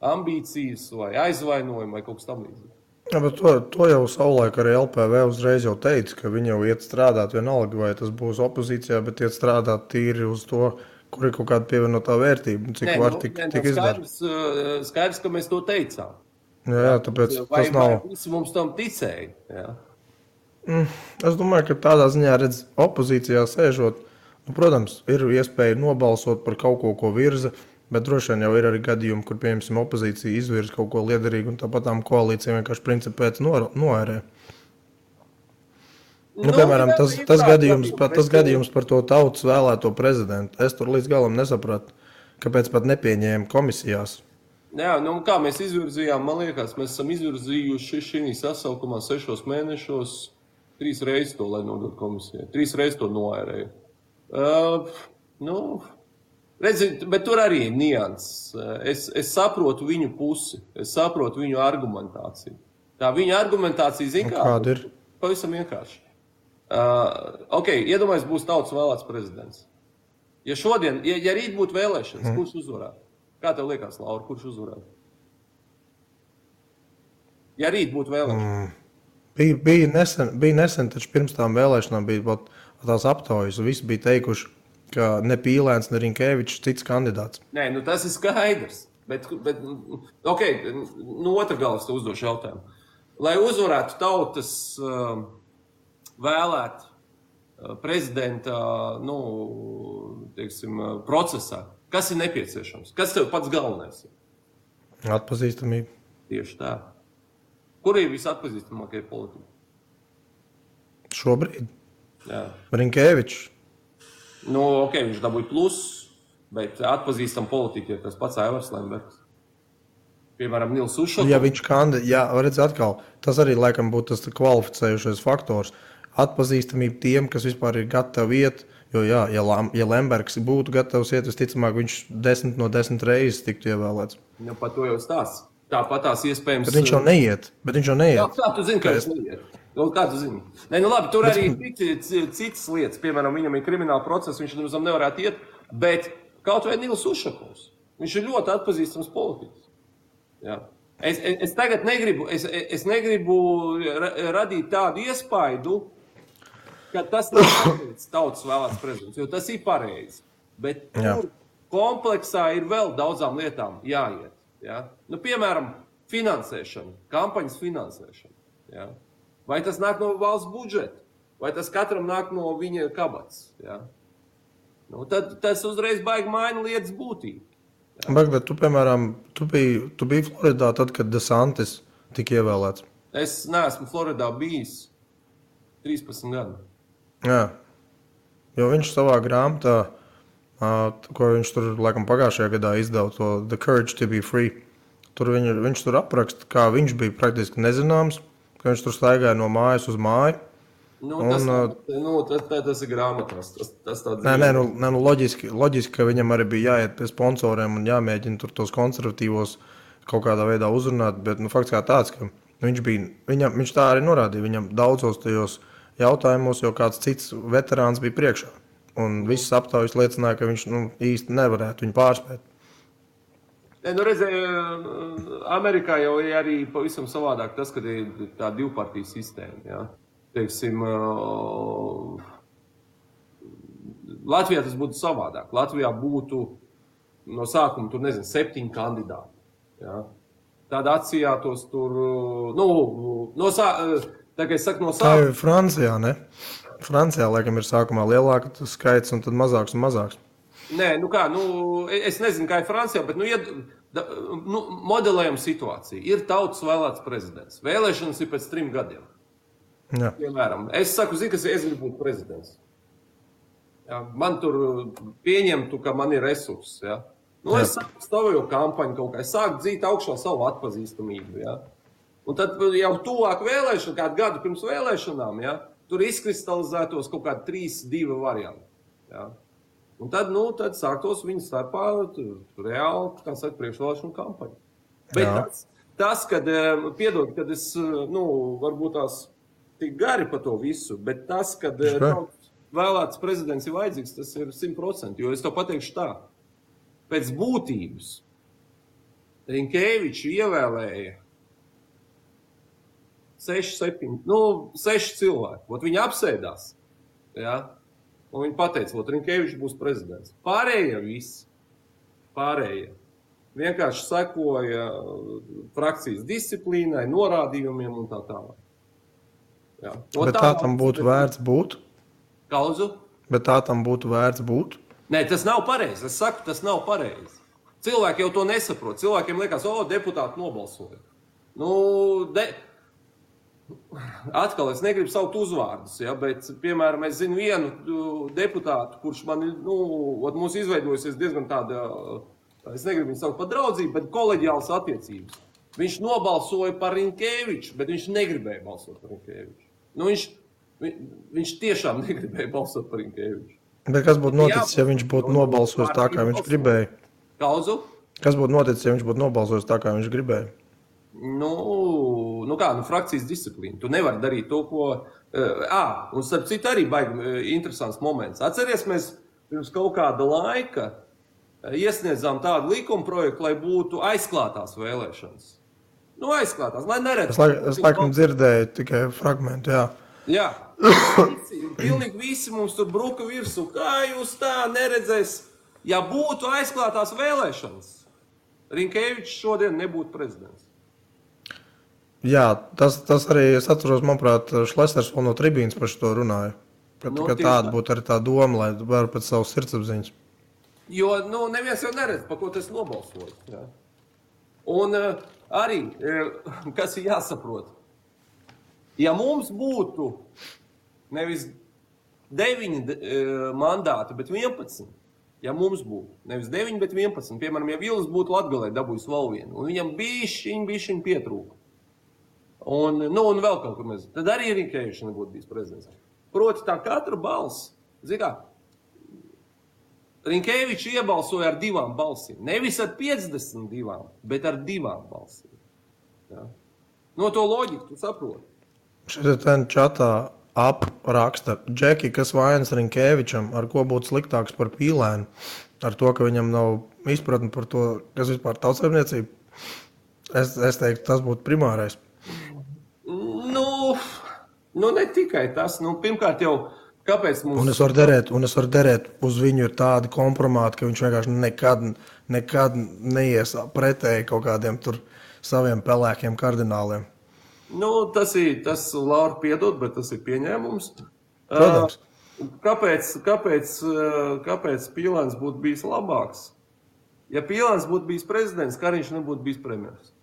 ambīcijas vai aizvainojumi vai kaut kas tam līdzīgi. Ja, bet to jau savulaik arī LPV uzreiz jau teica, ka viņi jau iet strādāt vienalga, vai tas būs opozīcijā, bet iet strādāt tīri uz to, kur ir kaut kāda pievienotā vērtība, cik var tik izdarīt. Skaidrs, ka mēs to teicām. Jā, tāpēc tas nav. Vai visi mums tam ticēja? Jā. Es domāju, ka tādā ziņā redz opozīcijā sēžot, protams, ir iespēja nobalsot par kaut ko virza, bet droši vien jau ir arī gadījumi, kur, piemēram, opozīcija izvirza kaut ko liederīgu un tāpatām koalīcija vienkārši principu pēc noērē. Piemēram, tas gadījums par to tautas vēlēto prezidentu. Es tur līdz galam nesapratu, kāpēc pat nepieņēma komisijās. Jā, kā mēs izvirzījām, man liekas, mēs esam izvirzījuši šī sasaukumā 6 mēnešos 3 reizes to, lai nodot komisijai. 3 reizes to noērēju. Redziet, bet tur arī ir nianses. Es saprotu viņu pusi, es saprotu viņu argumentāciju. Tā viņa argumentācija, kāda ir? Pavisam vienkārši. Iedomājies, būs tautas vēlēts prezidents. Ja šodien, ja rīt būtu vēlēšanas, kurš uzvarētu? Kā tev liekas, Laura, kurš uzvarētu? Ja rīt būtu vēlēšanas. Bija nesen, taču pirms tām vēlēšanām bija tās aptaujas, un visi bija teikuši, ka ne Pīlēns, ne Rinkēvičs cits kandidāts. Nē, tas ir skaidrs. Bet otra galvas te uzdošu jautājumu. Lai uzvarētu tautas vēlēt prezidenta, procesā, kas ir nepieciešams? Kas tev pats galvenais ir? Atpazīstamība. Tieši tā. Kur ir visatpazīstamākie politiķi? Šobrīd? Jā. Rinkēvičs. Viņš dabūja plusus, bet atpazīstam politiķi ir tas pats Aivars Lembergs. Piemēram, Nils Ušakovs. Ja viņš redz atkal, tas arī laikam būtu tas kvalificējušais faktors. Atpazīstamība tiem, kas vispār ir gatavi iet, jo ja Lembergs būtu gatavs iet, visticamāk viņš 10 no 10 reizes tiktu ievēlēts. Par to jau stāsts. Tāpat tās iespējams... Bet viņš jau neiet. Jā, kā tu zini, ka viņš neiet? Kā tu zini? Nē, nu labi, tur arī citas lietas. Piemēram, viņam ir krimināla process, viņš nevarētu iet, bet kaut vai Nils Ušakovs. Viņš ir ļoti atpazīstams politiķis. Jā. Es tagad negribu radīt tādu iespaidu, ka tas nav pareizi tautas vēlēts prezidents, jo tas ir pareizi. Bet tur kompleksā ir vēl daudzām lietām jāiet. Ja? Nu, piemēram, finansēšana, kampaņas finansēšana. Ja? Vai tas nāk no valsts budžeta, vai tas katram nāk no viņa kabats. Ja? Nu, tad tas uzreiz baigi maina lietas būtību. Ja? Bet tu, piemēram, tu biji Floridā tad, kad DeSantis tika ievēlēts? Es neesmu Floridā bijis 13 gadu. Jā, jo viņš savā grāmatā, ko viņš tur laikam pagājušajā gadā izdeva, to The Courage to be Free. Tur viņš tur apraksta, kā viņš bija praktiski nezināms, ka viņš tur staigāja no mājas uz māju. Tas ir grāmatās. Loģiski, ka viņam arī bija jāiet pie sponsoriem un jāmēģina tur tos konservatīvos kaut kādā veidā uzrunāt, bet fakts kā tāds, ka viņš tā arī norādīja, viņam daudzos tajos jautājumos, jo kāds cits veterāns bija priekšā. Un visas aptaujas liecināja, ka viņš īsti nevarētu viņu pārspēt. Amerikā jau ir arī pavisam savādāk tas, kad ir tā divpartiju sistēma. Ja? Teiksim, Latvijā tas būtu savādāk. Latvijā būtu no sākuma, 7 kandidāti. Ja? Tāda atsījātos tur, tā kā es saku no sākuma. Tā ir Francijā, ne? Francijā, laikam, ir sākumā lielāka skaits un tad mazāks un mazāks. Nē, es nezinu, kā ir Francijā, bet, modelējam situāciju. Ir tautas vēlēts prezidents. Vēlēšanas ir pēc 3 gadiem. Jā. Piemēram, es saku, ka es gribu būt prezidents. Ja, man tur pieņemtu, ka man ir resursi. Ja. Es stāvēju kampaņu kaut kā, es sāku dzīt augšā savu atpazīstamību. Ja. Un tad jau tuvāk vēlēšana, kādu gadu pirms vēlēšanām, ja, tur izkristalizētos kaut kādi 3-2 varianti. Ja. Un tad sāktos viņu starpā reāli, kā saka, priekšvēlēšanu kampaņu. Bet tas, kad es, varbūt tās tik gari par to visu, bet tas, kad vēlēts prezidents ir vajadzīgs, tas ir 100%, jo es to pateikšu tā. Pēc būtības Rinkēviču ievēlēja 6 cilvēki. Viņi apsēdās, ja? Un viņi pateica, Rinkēvičs būs prezidents. Pārējie vienkārši sekoja frakcijas disciplīnai, norādījumiem un tā tālāk. Ja. Bet tā tam būtu vērts būt? Kauzu? Bet tā tam būtu vērts būt? Nē, tas nav pareizi. Es saku, tas nav pareizi. Cilvēki jau to nesaprot. Cilvēkiem liekas, deputāti nobalsoja. Atkal es negribu saukt uzvārdus, ja, bet, piemēram, es zinu vienu deputātu, kurš man mums izveidojusies diezgan tāda, es negribu viņu saukt par draudzību, bet koleģiālas attiecības. Viņš nobalsoja par Rinkēviču, bet viņš negribēja balsot par Rinkēviču. Viņš tiešām negribēja balsot par Rinkēviču. Bet kas būtu noticis, ja viņš būtu nobalsojis tā, kā viņš gribēja? Kauzu? Kas būtu noticis, ja viņš būtu nobalsojis tā, kā viņš gribēja? Frakcijas disciplīna. Tu nevari darīt to, ko... Un starp citu arī baigi interesants moments. Atceries, mēs pirms kaut kāda laika iesniedzām tādu likuma projektu, lai būtu aizklātās vēlēšanas. Aizklātās, lai neredz. Es laikam dzirdēju tikai fragmentu, jā. Jā. Pilnīgi visi mums tur bruka virsū. Kā jūs tā neredzēs? Ja būtu aizklātās vēlēšanas, Rinkēvičs šodien nebūtu prezidents. Jā, tas arī, es atceros, manuprāt, Šlesners vēl no tribīnas par šo runāja. Ka tāda būtu arī tā doma, lai var pēc savas sirdsapziņas. Jo, neviens jau neredz, pa ko tas nobalsoja. Jā. Un arī, kas ir jāsaprot, ja mums būtu nevis 9 mandāti, bet 11, ja mums būtu nevis 9, bet 11, piemēram, ja Vils būtu Latgalē dabūjis vēl vienu, un viņam bišķiņ pietrūka, un vēl kaut kur mēs, tad arī Rinkēvičs nebūtu bijis prezidents. Proti tā katra balss, Rinkēvičs iebalsoja ar 2 balsīm, nevis ar 52, bet ar 2 balsīm. Ja. No to loģiku tu saproti. Šeit ten čatā apraksta Džeki, kas vainas Rinkēvičam, ar ko būtu sliktāks par Pīlēnu, ar to, ka viņam nav izpratni par to, kas vispār tautsaimniecība. Es teiktu, tas būtu primārais. Nu, ne tikai tas. Nu, pirmkārt jau, kāpēc mums... Un es varu derēt, uz viņu ir tādi kompromāti, ka viņš vienkārši nekad neies pretēji kaut kādiem tur saviem pelēkiem kardināliem. Nu, tas Laura piedod, bet tas ir pieņēmums. Protams. Kāpēc Pīlēns būtu bijis labāks? Ja Pīlēns būtu bijis prezidents, Kariņš nebūtu bijis premjers.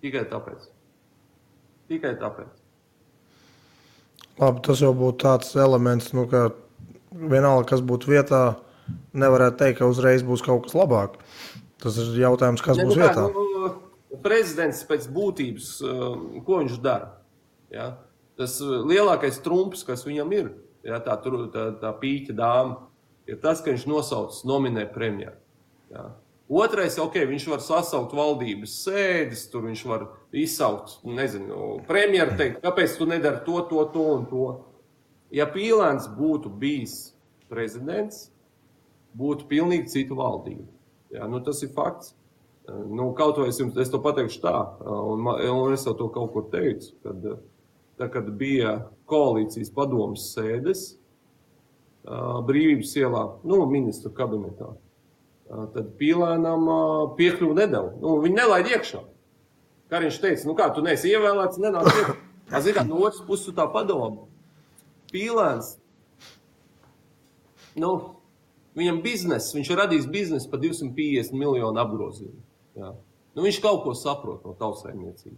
Tikai tāpēc. Labi, tas jau būtu tāds elements, nu, ka vienalga, kas būtu vietā, nevarētu teikt, ka uzreiz būs kaut kas labāk. Tas ir jautājums, kas būs vietā. Prezidents pēc būtības, ko viņš dara? Ja? Tas lielākais trumps, kas viņam ir, ja, tā pīķa dāma, ir tas, ka viņš nominē premjeru. Ja? Otrais, viņš var sasaukt valdības sēdes, tur viņš var izsaukt, premjeru teikt, kāpēc tu nedari to un to. Ja Pīlēns būtu bijis prezidents, būtu pilnīgi cita valdība. Ja, tas ir fakts. Kaut vai es to pateikšu tā, un es jau to kaut kur teicu, kad bija koalīcijas padomas sēdes Brīvības ielā, ministru kabinetā. Tad Pīlēnam piekļuvu nedeva. Viņi nelaid iekšā. Kariņš teica, kā tu neesi ievēlēts, nenāk iekšā. No otras puses tā padoma. Pīlēns, viņam viņš ir radījis biznesu par 250 miljonu apgrozījumu. Ja. Viņš kaut ko saprot no tautsaimniecības.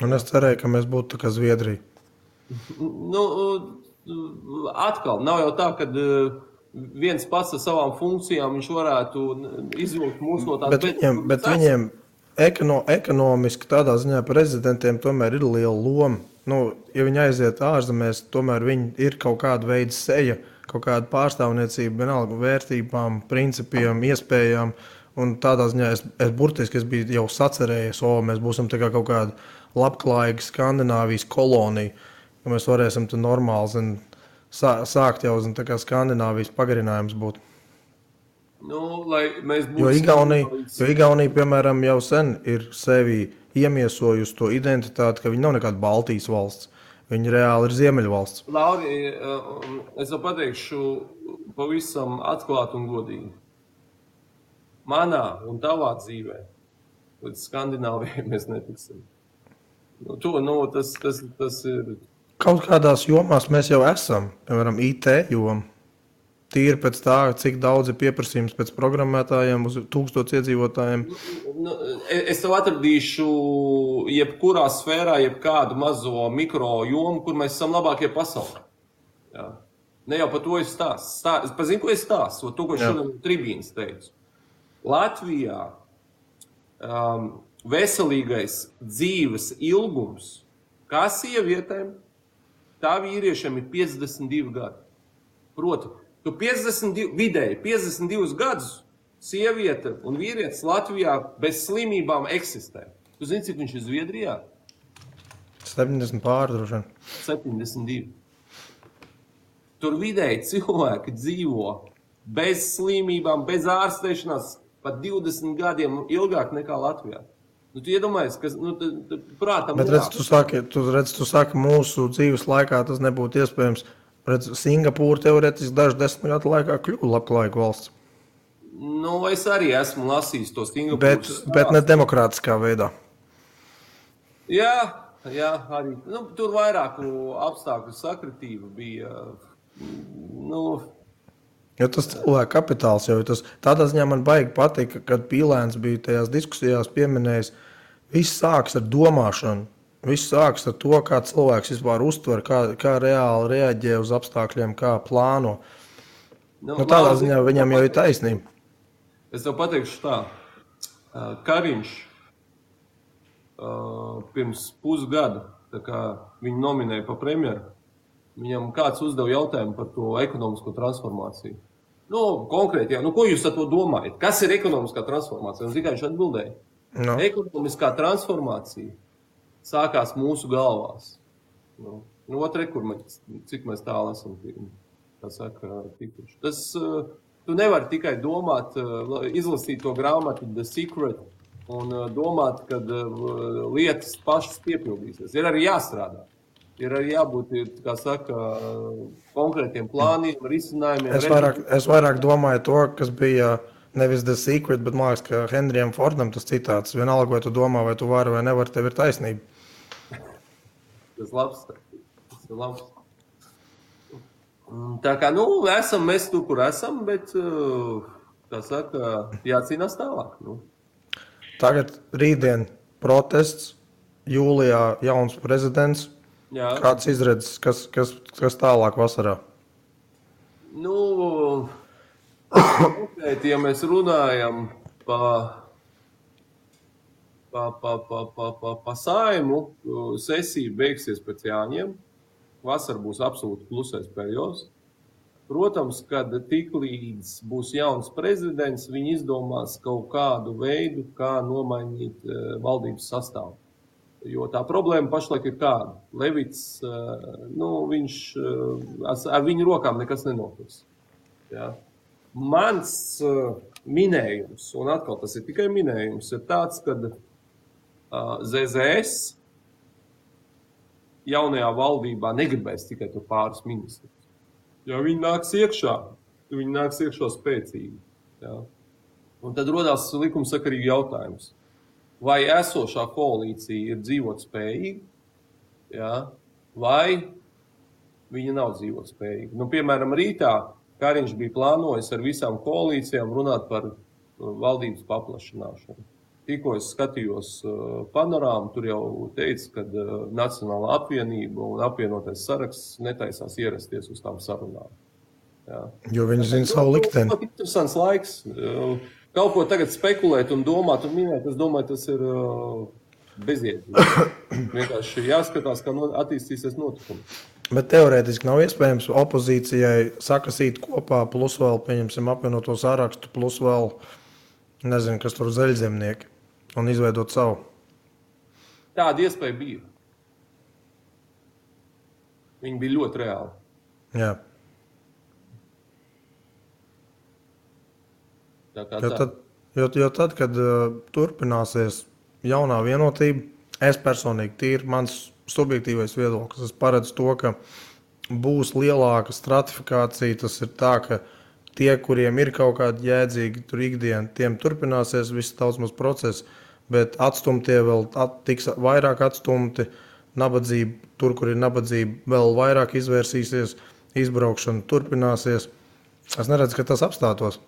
Un es cerēju, ka mēs būtu tā kā Zviedrija. Atkal, nav jau tā, ka viens pats ar savām funkcijām viņš varētu izvilkt mūs no tās. Bet viņiem ekonomiski tādā ziņā prezidentiem tomēr ir liela loma. Ja viņi aiziet ārzemēs, tomēr viņi ir kaut kāda veida seja, kaut kāda pārstāvniecība, vienalga vērtībām, principiem, iespējām. Un tādā ziņā es biju jau sacerējies, mēs būsim tā kā kaut kāda labklājīga Skandināvijas kolonija, ka mēs varēsim te normāli sākt jau tā kā Skandināvijas pagarinājums būt. Lai mēs būsim... Jo Igaunija, piemēram, jau sen ir sevi iemiesojusi to identitāti, ka viņi nav nekāda Baltijas valsts. Viņi reāli ir Ziemeļvalsts. Lauri, es jau pateikšu pavisam atklāt un godīgi. Manā un tavā dzīvē līdz Skandināvijai mēs netiksim. Tas ir... Kaut kādās jomās mēs jau esam, piemēram, IT joma. Tīri pēc tā, cik daudz ir pieprasījums pēc programmētājiem uz 1000 iedzīvotājiem. Es tev atradīšu jebkurā sfērā, jebkādu mazo mikro jomu, kur mēs esam labākie pasaulē. Jā. Ne jau par to es stāstu. Es pazinu, ko es stāstu, to, ko šodien tribīnas teicu. Latvijā veselīgais dzīves ilgums, kā sievietēm, tā vīriešiem ir 52 gadi. Proti, tu vidēji 52 gadus sieviete un vīrietis Latvijā bez slimībām eksistē. Tu zini, cik viņš ir Zviedrijā? 70 pārdroši. 72. Tur vidēji cilvēki dzīvo bez slimībām, bez ārstēšanās, pat 20 gadiem ilgāk nekā Latvijā. Tu iedomājies, ka prātam... Bet tu saki, mūsu dzīves laikā tas nebūtu iespējams. Singapūra teorētiski dažu 10 gadu laikā kļuva labklājīga valsts. Es arī esmu lasījis to Singapūras. Bet ne demokrātiskā veidā. Jā, arī. Tur vairāku apstākļu sakritība bija. Jo tas cilvēku kapitāls jau ir tas. Tādā ziņā man baigi patika, kad Pīlēns bija tajās diskusijās pieminējis, viss sāks ar domāšanu. Viss sāks ar to, kā cilvēks vispār uztver, kā reāli reaģē uz apstākļiem, kā plāno. Tādā ziņā viņam jau ir taisnība. Es tev pateikšu tā. Kariņš pirms pusgada, tā kā viņu nominēja par premjeru, viņam kāds uzdeva jautājumu par to ekonomisko transformāciju. Konkrēti, ko jūs ar to domājat? Kas ir ekonomiskā transformācija? Un viņš atbildēja. Ekonomiskā transformācija sākās mūsu galvās. Otrē, cik mēs tālu esam tikuši. Tas, tu nevari tikai domāt, izlasīt to grāmatu The Secret un domāt, ka lietas pašas piepildīsies. Ir arī jāstrādā. Ir arī jābūt, kā saka, konkrētiem plāniem, risinājumiem. Es vairāk domāju to, kas bija nevis The Secret, bet man liekas, ka Henrijam Fordam tas citāts. Vienalga, vai tu domā, vai tu vari vai nevari, tev ir taisnība. Tas ir labs. Tā kā, esam mēs tur, kur esam, bet, kā saka, jācīnās tālāk. Tagad rītdien protests, jūlijā jauns prezidents. Jā. Kāds izredzes, kas tālāk vasarā? Ja mēs runājam pa Saimu, sesija beigsies pēc Jāņiem. Vasara būs absolūti klusais periods. Protams, kad tiklīdz būs jauns prezidents, viņi izdomās kaut kādu veidu, kā nomainīt valdības sastāvu. Jo tā problēma pašlaik ir kāda. Levits, viņš ar viņu rokām nekas nenotiks. Ja? Mans minējums, un atkal tas ir tikai minējums, ir tāds, ka ZZS jaunajā valdībā negribēs tikai tur pāris ministrus. Jo viņi nāks iekšā spēcīgi. Ja? Un tad rodās likumsakarīgi jautājums. Vai esošā koalīcija ir dzīvot spējīga, ja? Vai viņa nav dzīvot spējīga. Piemēram, rītā Kariņš bija plānojis ar visām koalīcijām runāt par valdības paplašināšanu. Tikko es skatījos panorāmu, tur jau teica, ka Nacionālā apvienība un apvienotais saraksts netaisās ierasties uz tām sarunām. Ja. Jo viņi zina savu likteni. Tas ir interesants laiks. Kaut ko tagad spekulēt un domāt un minēt, es domāju, tas ir bezjēdzīgi. Vienkārši jāskatās, kā attīstīsies notikumi. Bet teorētiski nav iespējams opozīcijai sakasīt kopā, plus vēl, pieņemsim, apvienoto sarakstu, plus vēl, nezinu, kas tur zaļzemnieki, un izveidot savu. Tāda iespēja bija. Viņi bija ļoti reāli. Jā. Jo tad, kad turpināsies jaunā vienotība, es personīgi tīri, mans subjektīvais viedoklis, es paredzu to, ka būs lielāka stratifikācija, tas ir tā, ka tie, kuriem ir kaut kādi jēdzīgi tur ikdiena, tiem turpināsies viss tautsmas process, bet atstumtie vēl tiks vairāk atstumti, nabadzība, tur, kur ir nabadzība, vēl vairāk izvērsīsies, izbraukšana turpināsies. Es neredzu, ka tas apstātos,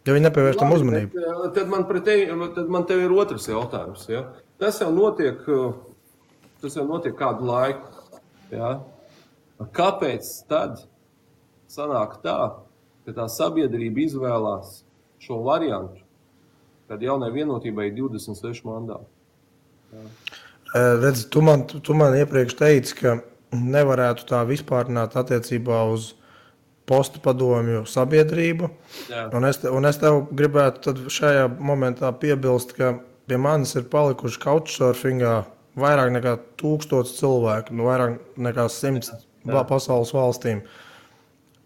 ja viņi nepievērš tam uzmanību. Tad man tev ir otrs jautājums. Ja? Tas jau notiek kādu laiku. Ja? Kāpēc tad sanāk tā, ka tā sabiedrība izvēlās šo variantu, kad jaunai vienotībai ir 26 mandāti? Ja? Redzi, tu man iepriekš teici, ka nevarētu tā vispārināt attiecībā uz postu padomju sabiedrību. Jā. Un es tev gribētu tad šajā momentā piebilst, ka pie manis ir palikuši couchsurfingā vairāk nekā 1000 cilvēku, vairāk nekā 100 pasaules valstīm.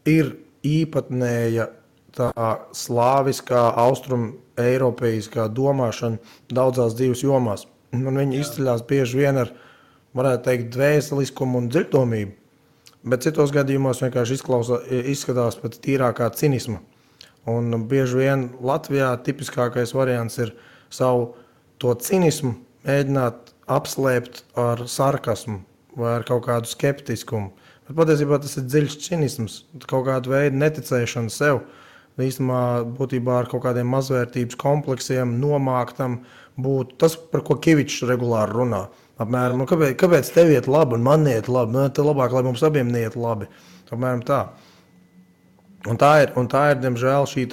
Ir īpatnēja tā slāviskā, austrum eiropeiskā domāšana daudzās dzīves jomās. Un viņi izceļās bieži vien ar, varētu teikt, dvēseliskumu un dziļdomību, bet citos gadījumos vienkārši izskatās pēc tīrākā cinisma. Un bieži vien Latvijā tipiskākais variants ir savu to cinismu mēģināt apslēpt ar sarkasmu vai ar kaut kādu skeptiskumu. Bet patiesībā tas ir dziļš cinisms, kaut kāda veida neticēšana sev. Īstenībā būtībā ar kaut kādiem mazvērtības kompleksiem nomāktam būtu tas, par ko Kivičs regulāri runā. Apmēram, kāpēc tev iet labi un man iet labi? Te labāk, lai mums abiem neiet labi. Apmēram tā. Un tā ir, diemžēl, šī,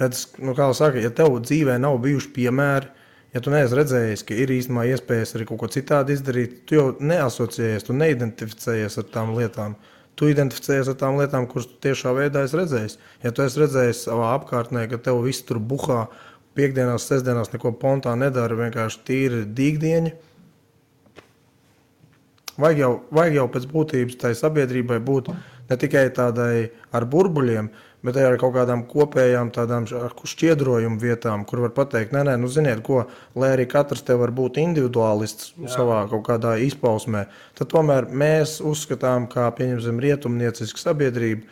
redz, kā saka, ja tev dzīvē nav bijuši piemēri, ja tu neesi redzējis, ka ir īstenībā iespējas arī kaut ko citādi izdarīt, tu jau neasociējies, tu neidentificējies ar tām lietām. Tu identificējies ar tām lietām, kuras tu tiešā veidā esi redzējis. Ja tu esi redzējis savā apkārtnē, ka tev viss tur buhā, piekdienās, sestdienās neko pontā nedara, vienkārši tīri dīgdieņi, vajag jau pēc būtības tai sabiedrībai būt ne tikai tādai ar burbuļiem, bet arī ar kaut kādām kopējām tādām šķiedrojumu vietām, kur var pateikt, nē, nu ziniet ko, lai arī katrs te var būt individuālists savā kaut kādā izpausmē, tad tomēr mēs uzskatām, kā pieņemsim rietumnieciska sabiedrība,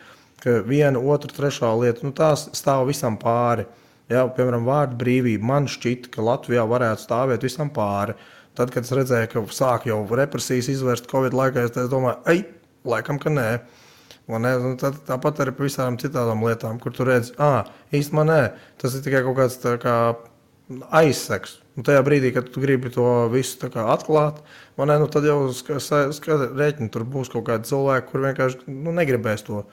ka viena, otra, trešā lieta, nu tās stāv visam pāri. Jā, piemēram, vārdu brīvība. Man šķita, ka Latvijā varētu stāvēt visam pāri. Tad, kad es redzēju, ka sāk jau represijas izvērst Covid laikā, es domāju, laikam, ka nē. Tāpat arī par visām citām lietām, kur tu redzi, īstenībā nē, tas ir tikai kaut kāds tā kā aizseks. Un tajā brīdī, kad tu gribi to visu tā kā atklāt, tad jau rēķini tur būs kaut kādi cilvēki, kur vienkārši negribēs to.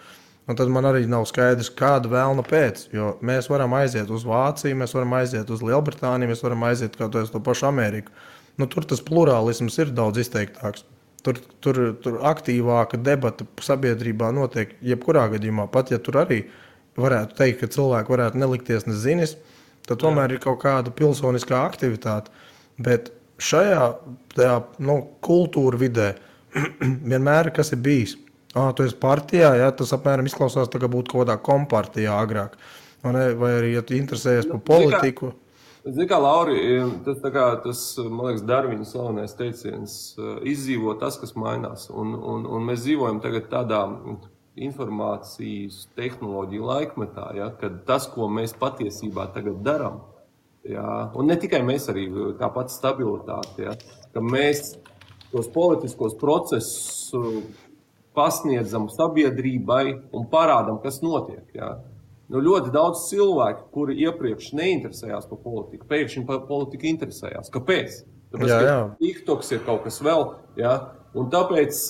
Un tad man arī nav skaidrs, kāda vēlna pēc, jo mēs varam aiziet uz Vāciju, mēs varam aiziet uz Lielbritāniju, mēs varam aiziet kaut uz to pašu Ameriku. Tur tas plurālisms ir daudz izteiktāks. Tur aktīvāka debata sabiedrībā notiek jebkurā gadījumā. Pat ja tur arī varētu teikt, ka cilvēki varētu nelikties nezinis, tad tomēr ir kaut kāda pilsoniskā aktivitāte. Bet šajā kultūra vidē vienmēr kas ir bijis. Tu esi partijā, ja, tas apmēram izklausās tā, ka būtu kaut kādā kompartijā agrāk. Vai arī, ja tu interesējies par politiku. Zini kā, Lauri, tas, man liekas, Darvina slavenais teiciens, izdzīvo tas, kas mainās. Un mēs dzīvojam tagad tādā informācijas tehnoloģiju laikmetā, ja, kad tas, ko mēs patiesībā tagad darām, ja, un ne tikai mēs arī, tāpat stabilitāte, ja, ka mēs tos politiskos procesus pasniedzam sabiedrībai un parādam, kas notiek. Ja. Ļoti daudz cilvēku, kuri iepriekš neinteresējās par politiku, pēkšņi par politiku interesējās. Kāpēc? Tāpēc, ka TikToks ir kaut kas vēl. Ja. Un tāpēc...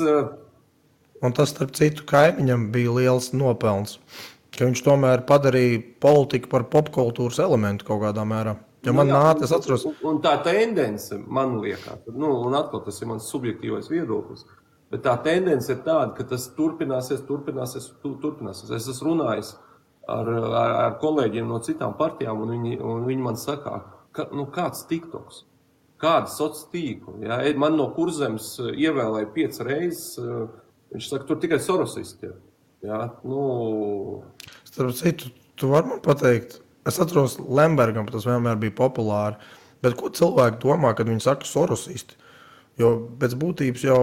Un tas, starp citu, kaimiņam bija liels nopelns, ka viņš tomēr padarīja politiku par popkultūras elementu kaut kādā mērā. Ja man es atceros... Un tā tendence, man liekas, un atkal tas ir mans subjektīvais viedoklis, bet tā tendence ir tāda, ka tas turpināsies. Es esmu runājis ar kolēģiem no citām partijām, un viņi man saka, kāds TikToks, kāda sociāla tīkla. Ja? Man no Kurzemes ievēlēja 5 reizes, viņš saka, tur tikai sorosisti ir. Ja? Starp citu, tu vari man pateikt, es atceros Lembergam, tas vienmēr bija populāri, bet ko cilvēki domā, kad viņi saka sorosisti? Jo pēc būtības jau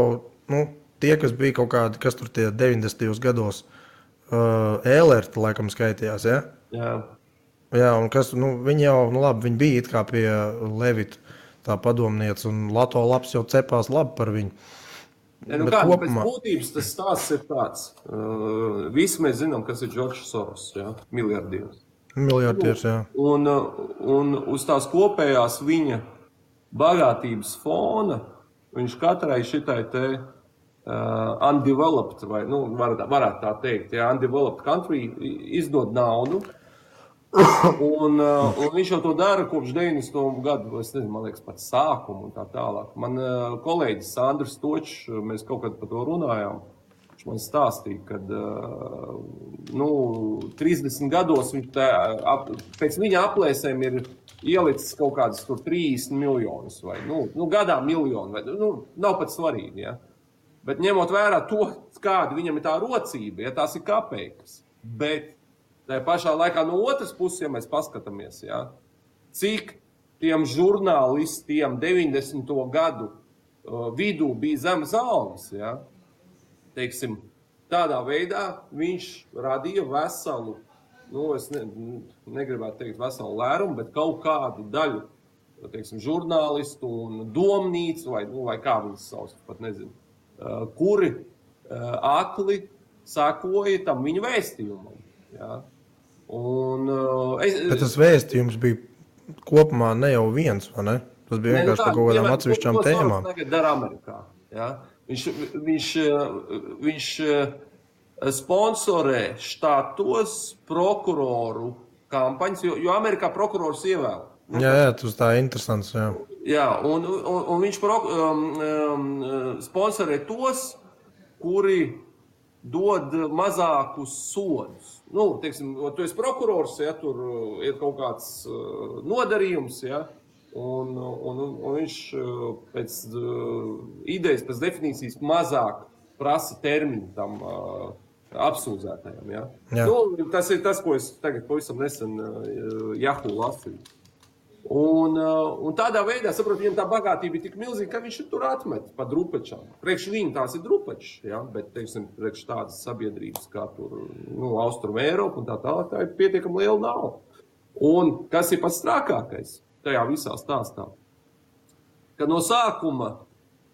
tie, kas bija kaut kādi, kas tur tie 90. gados ēlerti, laikam skaitījās, ja? Jā, un kas, viņi jau, labi, viņi bija it kā pie Levita tā padomniece, un Lato labs jau cepās labi par viņu. Pēc būtības tas stāsts ir tāds. Visi mēs zinām, kas ir Džordžs Soros, ja? Miljardieris. Miljardieris, jā. Un uz tās kopējās viņa bagātības fona viņš katrai šitai te undeveloped, vai varētu tā teikt, ja, undeveloped country izdod naudu, un viņš jau to dara kopš 90. gadu, es nezinu, man liekas, pat sākumu un tā tālāk. Man kolēģis Sandrs Točs, mēs kaut kad par to runājām, viņš man stāstīja, kad 30 gados viņš pēc viņa aplēsēm ir ielicis kaut kādas tur 30 miljonus vai, gadā miljonu, vai, nav pat svarīgi, ja. Bet ņemot vērā to, kāda viņam ir tā rocība, ja tās ir kapeikas. Bet tajā pašā laikā no otras puses, ja mēs paskatāmies, ja, cik tiem žurnālistiem 90. gadu vidū bija zemes algas, ja, teiksim, tādā veidā viņš radīja veselu, es negribētu teikt veselu lērumu, bet kaut kādu daļu, teiksim, žurnālistu un domnīcu, vai kā viņas sauc, pat nezinu. Kuri akli sakoja tam viņa vēstījumam. Ja? Bet tas vēstījums bija kopumā ne jau viens, vai ne? Tas bija vienkārši par kaut kādām atsevišķām tēmām. Ko tagad dara Amerikā? Ja? Viņš sponsorē štātos prokuroru kampaņas, jo Amerikā prokurors ievēl. Jā, tas tā interesants, jā. Jā, un viņš sponsorē tos, kuri dod mazākus sodus. Teiksim, tu esi prokurors, ja tur ir kaut kāds nodarījums, ja, un viņš pēc idejas, pēc definīcijas mazāk prasa termiņu tam apsūdzētajam. Ja? Jā. Nu, tas ir tas, ko es tagad pavisam nesen Yahoo lasīju. Un tādā veidā, saprot, viņam tā bagātība ir tik milzīga, ka viņš tur atmet pa drupečām. Priekš viņu tās ir drupečs, ja? Bet, teiksim, priekš tādas sabiedrības kā tur, Austrum Eiropa un tā tālāk, tā ir pietiekami liela nauda. Un kas ir pats strākākais tajā visā stāstā? Ka no sākuma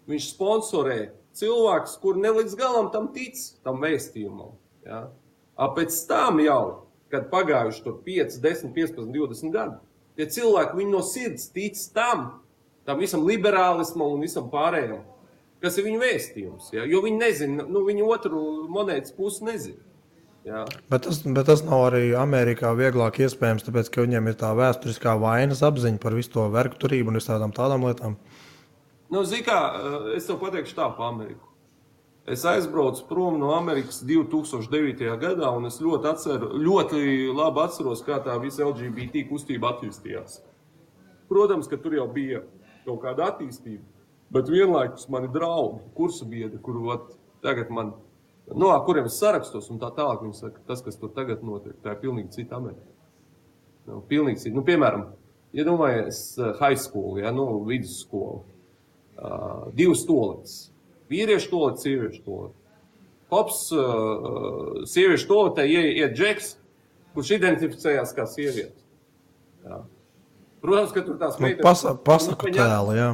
viņš sponsorē cilvēks, kur ne līdz galam tam tic, tam vēstījumam. Ja? Pēc tam jau, kad pagājuši tur 5, 10, 15, 20 gadi, tie cilvēki, viņi no sirds tic tam visam liberālismam un visam pārējam, kas ir viņu vēstījums. Ja? Jo viņi nezina, viņi otru monētas pusi nezina. Ja? Bet tas nav arī Amerikā vieglāk iespējams, tāpēc, ka viņiem ir tā vēsturiskā vainas apziņa par visu to vergturību un visādām tādām lietām. Zini kā, es tev pateikšu tā pa Ameriku. Es aizbraucu prom no Amerikas 2009. Gadā, un es ļoti labi atceros, kā tā visa LGBT kustība attīstījās. Protams, ka tur jau bija kaut kāda attīstība, bet vienlaikus mani draugi, kursa biedri, kuru tagad man, kuriem es sarakstos un tā tālāk, viņi saka, tas, kas tur tagad notiek, tā ir pilnīgi cita Amerika. Pilnīgi cita. Piemēram, iedomājies high school, vidusskolu, 2 stolītes. Vīriešu toalets, sieviešu toalets. Hops, sieviešu toaletē iet Džeks, kurš identificējās kā sieviete. Jā. Protams, ka tur tās meitenes... Pasaku tēli, jā.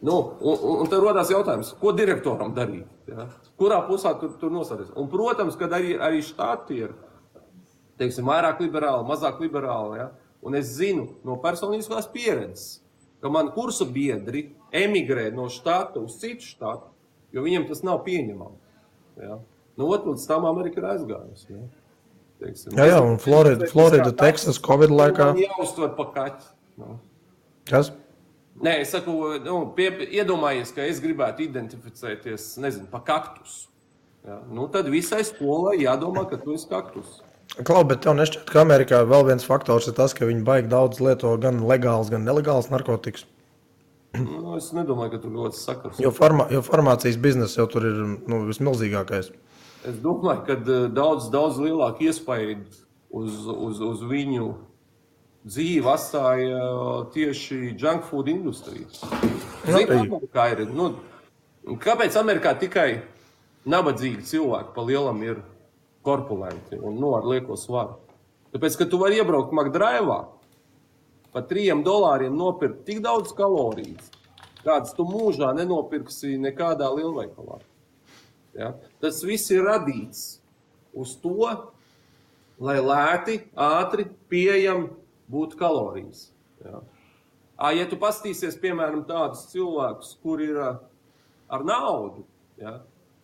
Un tad rodās jautājums, ko direktoram darīt? Ja? Kurā pusā tur nosāties? Un, protams, kad arī štāti ir, teiksim, vairāk liberāli, mazāk liberāli. Ja? Un es zinu no personiskās pieredzes, ka man kursa biedri emigrē no štāta uz citu štātu, jo viņiem tas nav pieņemami. Ja? Līdz tam Amerika ir aizgājusi. Ja? Teiksim, jā, un Florida, Texas, Covid laikā. Man jāuztver pa kaķi. Kas? Nē, es saku, iedomājies, ka es gribētu identificēties, pa kaktusu. Ja? Tad visai skolai jādomā, ka tu esi kaktus. Klau, bet tev nešķiet, ka Amerikā vēl viens faktors ir tas, ka viņi baigi daudz lieto gan legāls, gan nelegāls narkotikas. Es nedomāju, ka tur ļoti sakars. Jo farmācijas biznesa jau tur ir vismilzīgākais. Es domāju, ka daudz lielāku iespaidu uz viņu dzīvi atstāja tieši junk food industrija. Kāpēc Amerikā tikai nabadzīgi cilvēki pa lielam ir korpulenti un ar lieko svaru? Tāpēc, ka tu vari iebraukt McDrive'ā, par $3 nopirkt tik daudz kalorijas, kādas tu mūžā nenopirksi nekādā lielveikalā. Ja? Tas viss ir radīts uz to, lai lēti, ātri, pieejami būtu kalorijas. Ja? Ja tu pastīsies, piemēram, tādus cilvēkus, kur ir ar naudu, ja?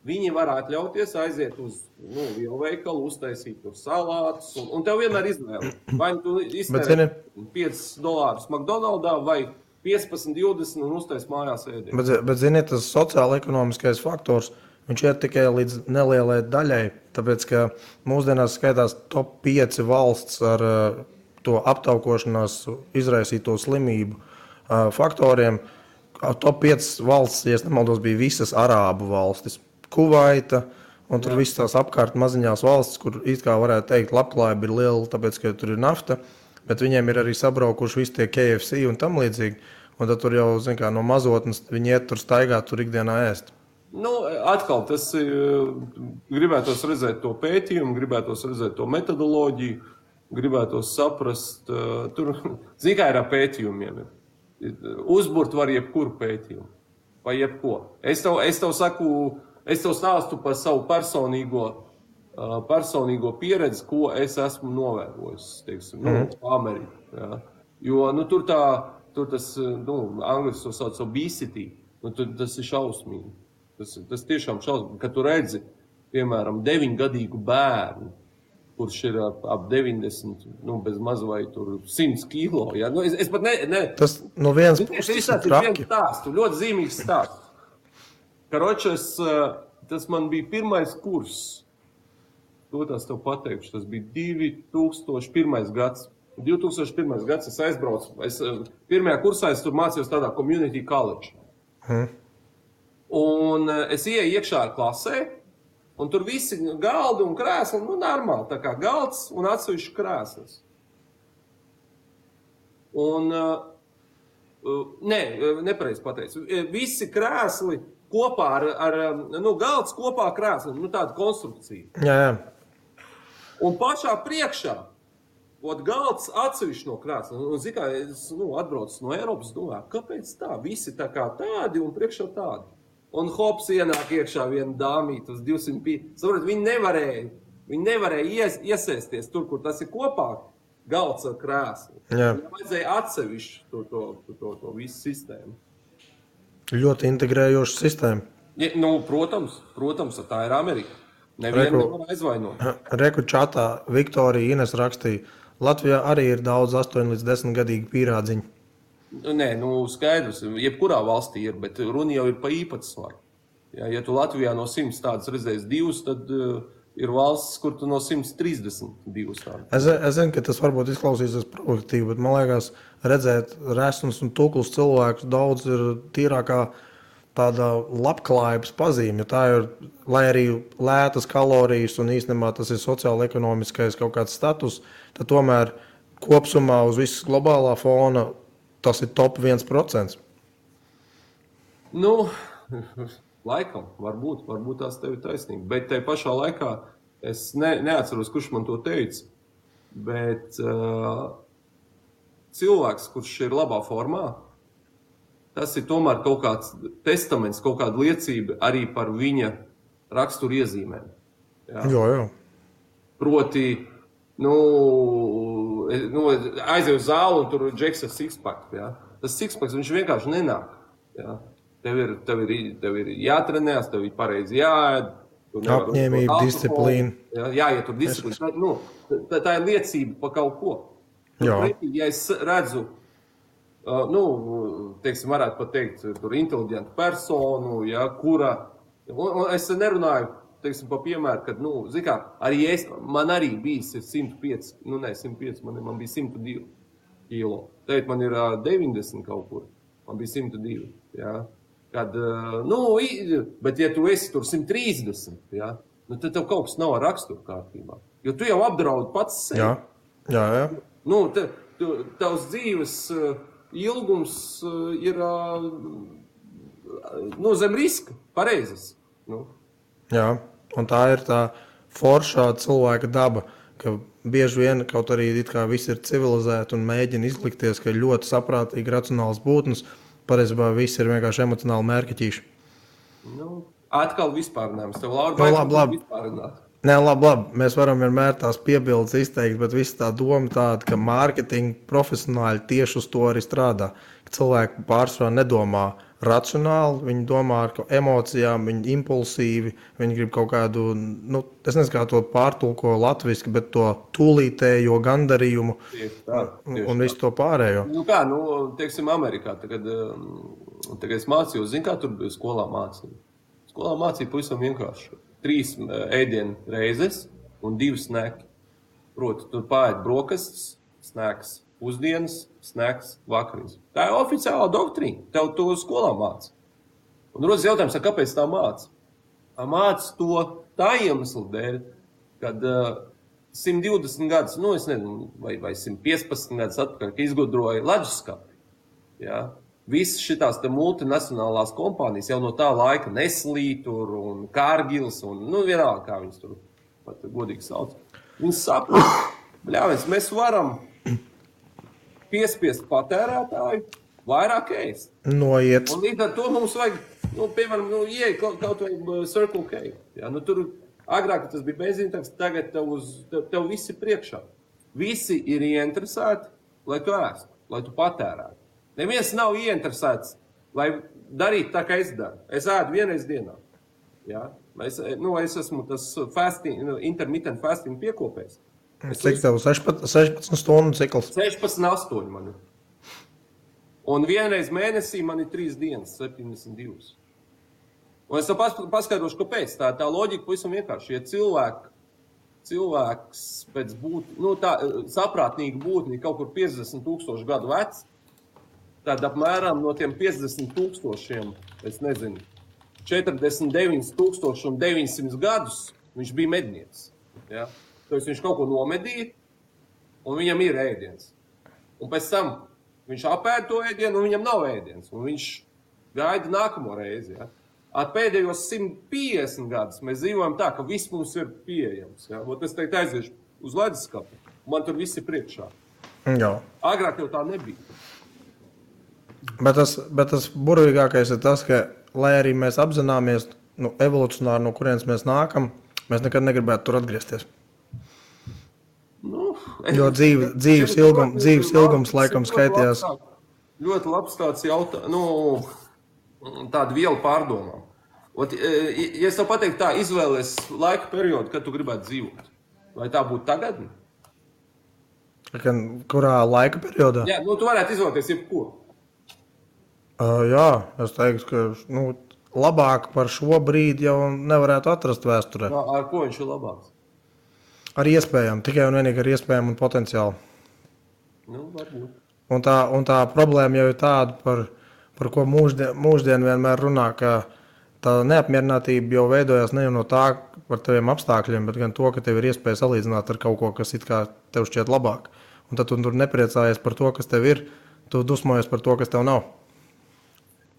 Viņi var atļauties aiziet uz lielveikalu, uztaisīt tur salātus, un tev vienmēr izvēle. Vai tu iztērē $5 McDonald'ā vai 15, 20 un uztais mājās ēdienu. Bet zini, tas sociāla-ekonomiskais faktors, viņš ir tikai līdz nelielai daļai, tāpēc, ka mūsdienās skaitās top 5 valsts ar to aptaukošanās izraisīto slimību faktoriem. Top 5 valsts, ja es nemaldos, bija visas arābu valstis. Kuvaita, un tur viss tās apkārt maziņās valstis, kur it kā varētu teikt, labklājība ir liela, tāpēc, ka tur ir nafta, bet viņiem ir arī sabraukuši visi tie KFC un tam līdzīgi, un tad tur jau, zin kā, no mazotnes viņi iet tur staigāt, tur ikdienā ēst. Atkal, tas gribētos redzēt to pētījumu, gribētos redzēt to metodoloģiju, gribētos saprast, tur, zin kā ir ar pētījumiem, uzburt var jebkuru pētījumu, vai jebko. Es tev saku, es tev stāstu par savu personīgo pieredzi, ko es esmu novērojis, teiksim, Amerikā. Ja? Jo, tur tas, angliski to sauc obesity, tas ir šausmīgi. Tas tiešām šausmīgi, kad tu redzi, piemēram, 9-gadīgu bērnu, kurš ir ap 90, bez maz vai tur 100 kilo. Ja? Es pat ne... Tas no vienas puses ir traki. Ļoti zīmīgs stāsts. Karočas, tas man bija pirmais kurs. To tās tev pateikšu. Tas bija 2001. gads. 2001. gads es aizbraucu. Pirmajā kursā es tur mācījos tādā community college. Un es ieeju iekšā klasē, un tur visi galdi un krēsli, normāli, tā kā galds un atsevišķi krēslis. Un, nepareizi pateicu, visi krēsli kopā ar galds kopā krēsli, tāda konstrukcija. Jā. Un pašā priekšā, galds atsevišķi no krēsla. Un, kā es atbraucu no Eiropas, domāju, kāpēc tā? Visi tā kā tādi un priekšā tādi. Un hops ienāk iekšā viena dāmīta uz 205. Saprot, viņi nevarēja iesēsties tur, kur tas ir kopā galds ar krēslu. Viņam vajadzēja atsevišķi to visu sistēmu. Ļoti integrējoša sistēma. Ja, protams, tā ir Amerika. Nevienu nevar aizvainot. Reku čatā Viktorija Ines rakstīja, Latvijā arī ir daudz 8 līdz 10 gadīgi pīrādziņi. Nē, skaidrs, jebkurā valstī ir, bet runa jau ir pa īpatsvaru. Ja tu Latvijā no 100 tādas redzēs 2, tad ir valsts, kur tu no 132 tādas. Es zinu, ka tas varbūt izklausīsies provokatīvi, bet man liekas, redzēt resnus un tukls cilvēkus daudz ir tīrākā tāda labklājības pazīme, jo tā ir, lai arī lētas kalorijas un īstenībā tas ir sociāli-ekonomiskais kaut kāds status, tad tomēr kopsumā uz visas globālā fona tas ir top 1%. Laikam, varbūt tās tev ir taisnība, bet tai pašā laikā es neatceros, kurš man to teica, bet cilvēks, kurš ir labā formā, tas ir tomēr kaut kāds testaments, kaut kāda liecība arī par viņa raksturu iezīmēm. Jā. Proti, aizēju uz zāli un tur džeks ar sixpack. Ja? Tas sixpack, viņš vienkārši nenāk. Ja? Tev ir jātrenēs, tev ir pareizi jāēd. Apņēmība, disciplīna. Ja tur disciplīna. Tā ir liecība pa kaut ko. Ja es redzu, teiksim, varētu pat teikt, tur inteliģentu personu, ja, kura, un es nerunāju, teiksim, pa piemēru, kad, arī man arī bija 105, 105, man bija 102 kilo. Tagad man ir 90 kaut kur, man bija 102, ja. Kad, bet ja tu esi tur 130, ja, tad tev kaut kas nav ar raksturu kārtībā, jo tu jau apdraudi pats sevi. Jā. Tavs dzīves ilgums ir zem riska, pareizes. Jā, un tā ir tā foršā cilvēka daba, ka bieži vien, kaut arī it kā visi ir civilizēti un mēģina izlikties, ka ir ļoti saprātīgi racionāls būtnes, pareizībā visi ir vienkārši emocionāli mērķiķīši. Atkal vispārinājums. Tev, Laura, labi. Nē, labi. Mēs varam vienmēr tās piebildes izteikt, bet viss tā doma tāda, ka mārketinga profesionāļi tieši uz to arī strādā. Ka cilvēki pārsvarā nedomā racionāli, viņi domā ar emocijām, viņi impulsīvi, viņi grib kaut kādu, es nezinu, kā to pārtulko latviski, bet to tūlītējo gandarījumu un visu to pārējo. Teiksim, Amerikā, tagad es mācījos, kā tur bija skolā mācīja. Skolā mācīja pavisam vienkārši. 3 ēdienu reizes un 2 sneki. Proti, tur pārēt brokastis, sneks pusdienas, sneks vakariņas. Tā ir oficiālā doktrīna. Tev to skolā māca. Un rodas jautājums, kāpēc tā māca? Māca to tā iemesla dēļ, kad 120 gadus, es nezinu, vai 115 gadus atpakaļ, ka izgudroja leduskapi. Ja? Visas šitās te multinacionālās kompānijas jau no tā laika Nestlé tur un Cargills un, vienalga, kā viņas tur pat godīgi sauc. Viņas saprot, mēs varam piespiest patērētāju vairāk ēst. Noiet. Un līdz ar to mums vajag, piemēram, ieeja kaut vai Circle K. Ja? Tur agrāk tas bija benzīntāks, tagad tev visi priekšā. Visi ir ieinteresēti, lai tu ēstu, lai tu patērētu. Neviens nav ieinteresēts, lai darītu tā, kā es daru. Es ēdu vienreiz dienā. Ja? Es esmu tas intermittent fasting piekopējs. Cik tev 16 stundu cikls? 16,8 man ir. Un vienreiz mēnesī man ir 3 dienas, 72. Un es paskaidrošu, kāpēc. Tā loģika pavisam vienkārši. Ja cilvēki cilvēks pēc saprātnīgi būtni kaut kur 50,000 gadu vecs, tad apmēram no tiem 50,000, es nezinu, 49,900 gadus viņš bija mednieks. Ja? Tāpēc viņš kaut ko nomedīja, un viņam ir ēdiens. Un pēc tam viņš apēd to ēdienu, un viņam nav ēdiens. Un viņš gaida nākamo reizi. Ja? Ar pēdējos 150 gadus mēs dzīvojam tā, ka viss mums ir pieejams. Ja? Es teikt aiziešu uz leduskapu, man tur viss ir priekšā. Jā. Agrāk jau tā nebija. Bet tas burvīgākais ir tas, ka, lai arī mēs apzināmies evolucionāri, no kurienes mēs nākam, mēs nekad negribētu tur atgriezties. Jo dzīves ilgums laikam skaitījās. Ļoti labs tāds jautājums, tāda viela pārdomām. Ja es tev pateiktu tā, izvēlies laika periodu, kad tu gribētu dzīvot, vai tā būtu tagad? Kurā laika periodā? Jā, tu varētu izvēlēties jebko. Jā, es teiktu, ka labāk par šo brīdi jau nevarētu atrast vēsturē. Ar ko viņš ir labāks? Ar iespējām, tikai un vienīgi ar iespējām un potenciālu. Varbūt. Un tā problēma jau ir tāda, par ko mūsdien vienmēr runā, ka tā neapmierinātība jau veidojas ne jau no tā par taviem apstākļiem, bet gan to, ka tev ir iespēja salīdzināt ar kaut ko, kas it kā tev šķiet labāk. Un tad tu tur nepriecājies par to, kas tev ir, tu dusmojies par to, kas tev nav.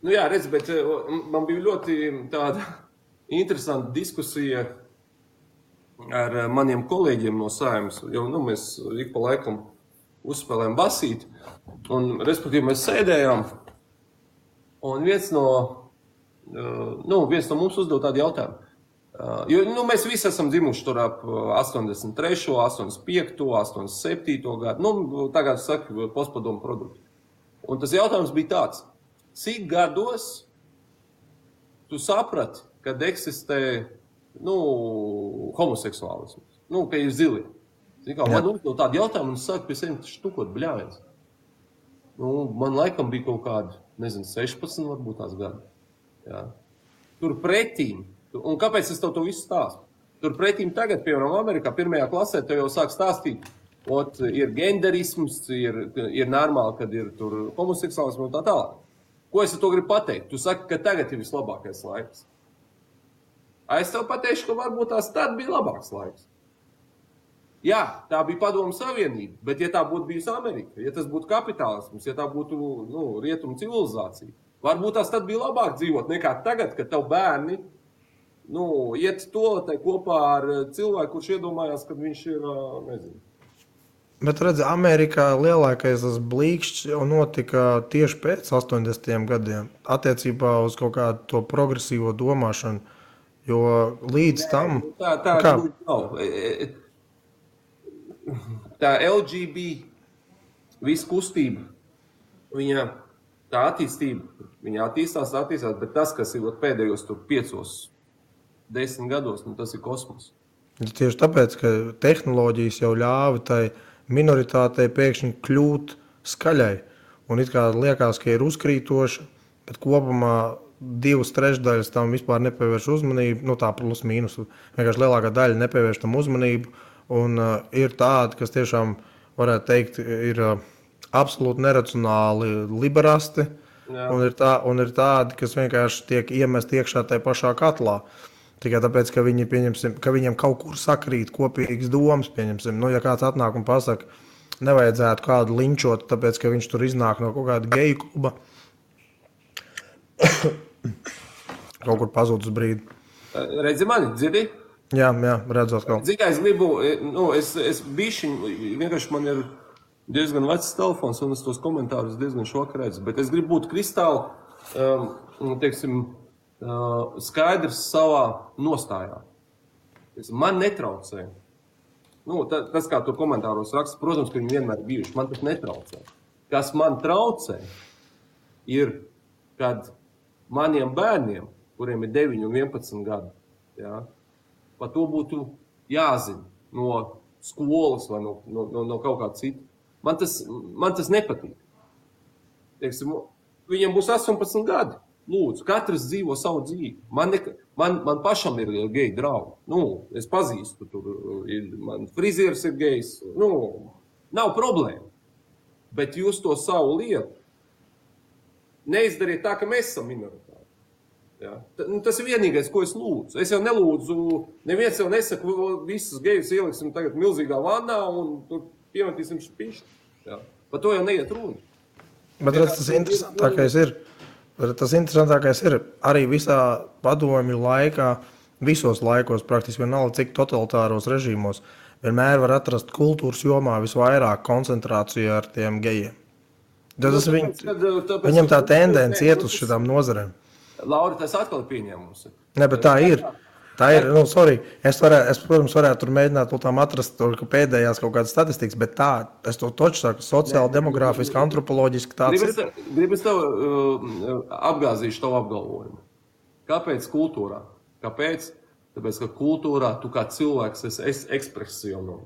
Jā, redz, bet man bija ļoti tāda interesanta diskusija ar maniem kolēģiem no Saeimas, jo mēs ik pa laikam uzspēlējam basīt, un respektīvi mēs sēdējām, un viens no mums uzdod tādu jautājumu. Jo mēs visi esam dzimuši tur ap 83., 85., 87. gadu, tagad saka postpadomu produktu. Un tas jautājums bija tāds, cik gados tu saprati, kad eksistē homoseksuālisms, ka ir zili. Man uzdod tādu jautājumu, un es sāku pie sevi štukot bļāviens. Man laikam bija kaut kādi, 16 varbūt tās gadi. Jā. Tur pretīm, un kāpēc es tev to visu stāstu? Tur pretīm tagad, piemēram, Amerikā, 1. klasē, tev jau sāk stāstīt, ir genderisms, ir normāli, kad ir tur homoseksuālisms un tā tālāk. Ko es ar to gribu pateikt? Tu saki, ka tagad ir vislabākais laiks. Es tev pateikšu, ka varbūt tās tad bija labāks laiks. Jā, tā bija Padomu Savienība, bet ja tā būtu bijusi Amerika, ja tas būtu kapitālisms, ja tā būtu rietumu civilizācija, varbūt tās tad bija labāk dzīvot nekā tagad, kad tev bērni iet toaletē kopā ar cilvēku, kurš iedomājās, kad viņš ir, nezinu. Bet redzi, Amerikā lielākais tas blīkšķis jau notika tieši pēc 80. gadiem attiecībā uz kaut kādu to progresīvo domāšanu, jo līdz tam... Tā nav. Tā LGB, viss kustība, viņa tā attīstība, viņa attīstās, bet tas, kas ir pēdējos 5-10 gados, tas ir kosmos. Tieši tāpēc, ka tehnoloģijas jau ļāva tai minoritātei pēkšņi kļūt skaļai. Un it kā liekas, ka ir uzkrītoši, bet kopumā 2/3 tam vispār nepievērš uzmanību, tā plus mīnus, vienkārši lielākā daļa nepievērš tam uzmanību. Un ir tādi, kas tiešām, varētu teikt, ir absolūti neracionāli liberasti, un ir tādi, kas vienkārši tiek iemest iekšā tajā pašā katlā. Tikai tāpēc, ka viņiem kaut kur sakrīt kopīgas domas, pieņemsim. Ja kāds atnāk un pasaka, nevajadzētu kādu linčot, tāpēc, ka viņš tur iznāk no kaut kāda geju kluba, kaut kur pazūd uz brīdi. Redzi mani, dzirdi? Jā, redzot kaut. Zini, kā es gribu, es bišķiņ, vienkārši man ir diezgan vecs telefons, un es tos komentārus diezgan šokā redzu, bet es gribu būt kristāli, skaidrs savā nostājā. Man netraucē. Tas, kā tur komentāros raksta, protams, ka viņi vienmēr bijuši, man tas netraucē. Kas man traucē, ir, kad maniem bērniem, kuriem ir 9 un 11 gadi, jā, par to būtu jāzina no skolas vai no kaut kā cita. Man tas nepatīk. Viņiem būs 18 gadi. Lūdzu, katrs dzīvo savu dzīvi. Man pašam ir geji draugi. Es pazīstu, man frizieris ir gejs. Nav problēma. Bet jūs to savu lietu neizdariet tā, ka mēs esam minoritāti. Ja? Tas ir vienīgais, ko es lūdzu. Es jau nelūdzu, neviens jau nesaka, visus gejus ieliksim tagad milzīgā vannā un tur piemetīsim špišķi. Ja? Par to jau neiet runa. Bet tas interesantākais ir arī visā padomju laikā, visos laikos, praktiski vienalga, cik totalitāros režīmos, vienmēr var atrast kultūras jomā visvairāk koncentrāciju ar tiem gejiem. Viņam tā tendence iet uz šitām nozarēm. Lauri, tas atkal ir pieņēmums. Ne, bet tā ir. Es, protams, varētu tur mēģināt atrast pēdējās kaut kādas statistikas, bet tā, es to toču saku, sociāli, demogrāfiski, antropoloģiski tāds ir. Gribas tev apgāzīšu tavu apgalvojumu. Kāpēc kultūrā? Kāpēc? Tāpēc, ka kultūrā tu kā cilvēks esi ekspresionāli.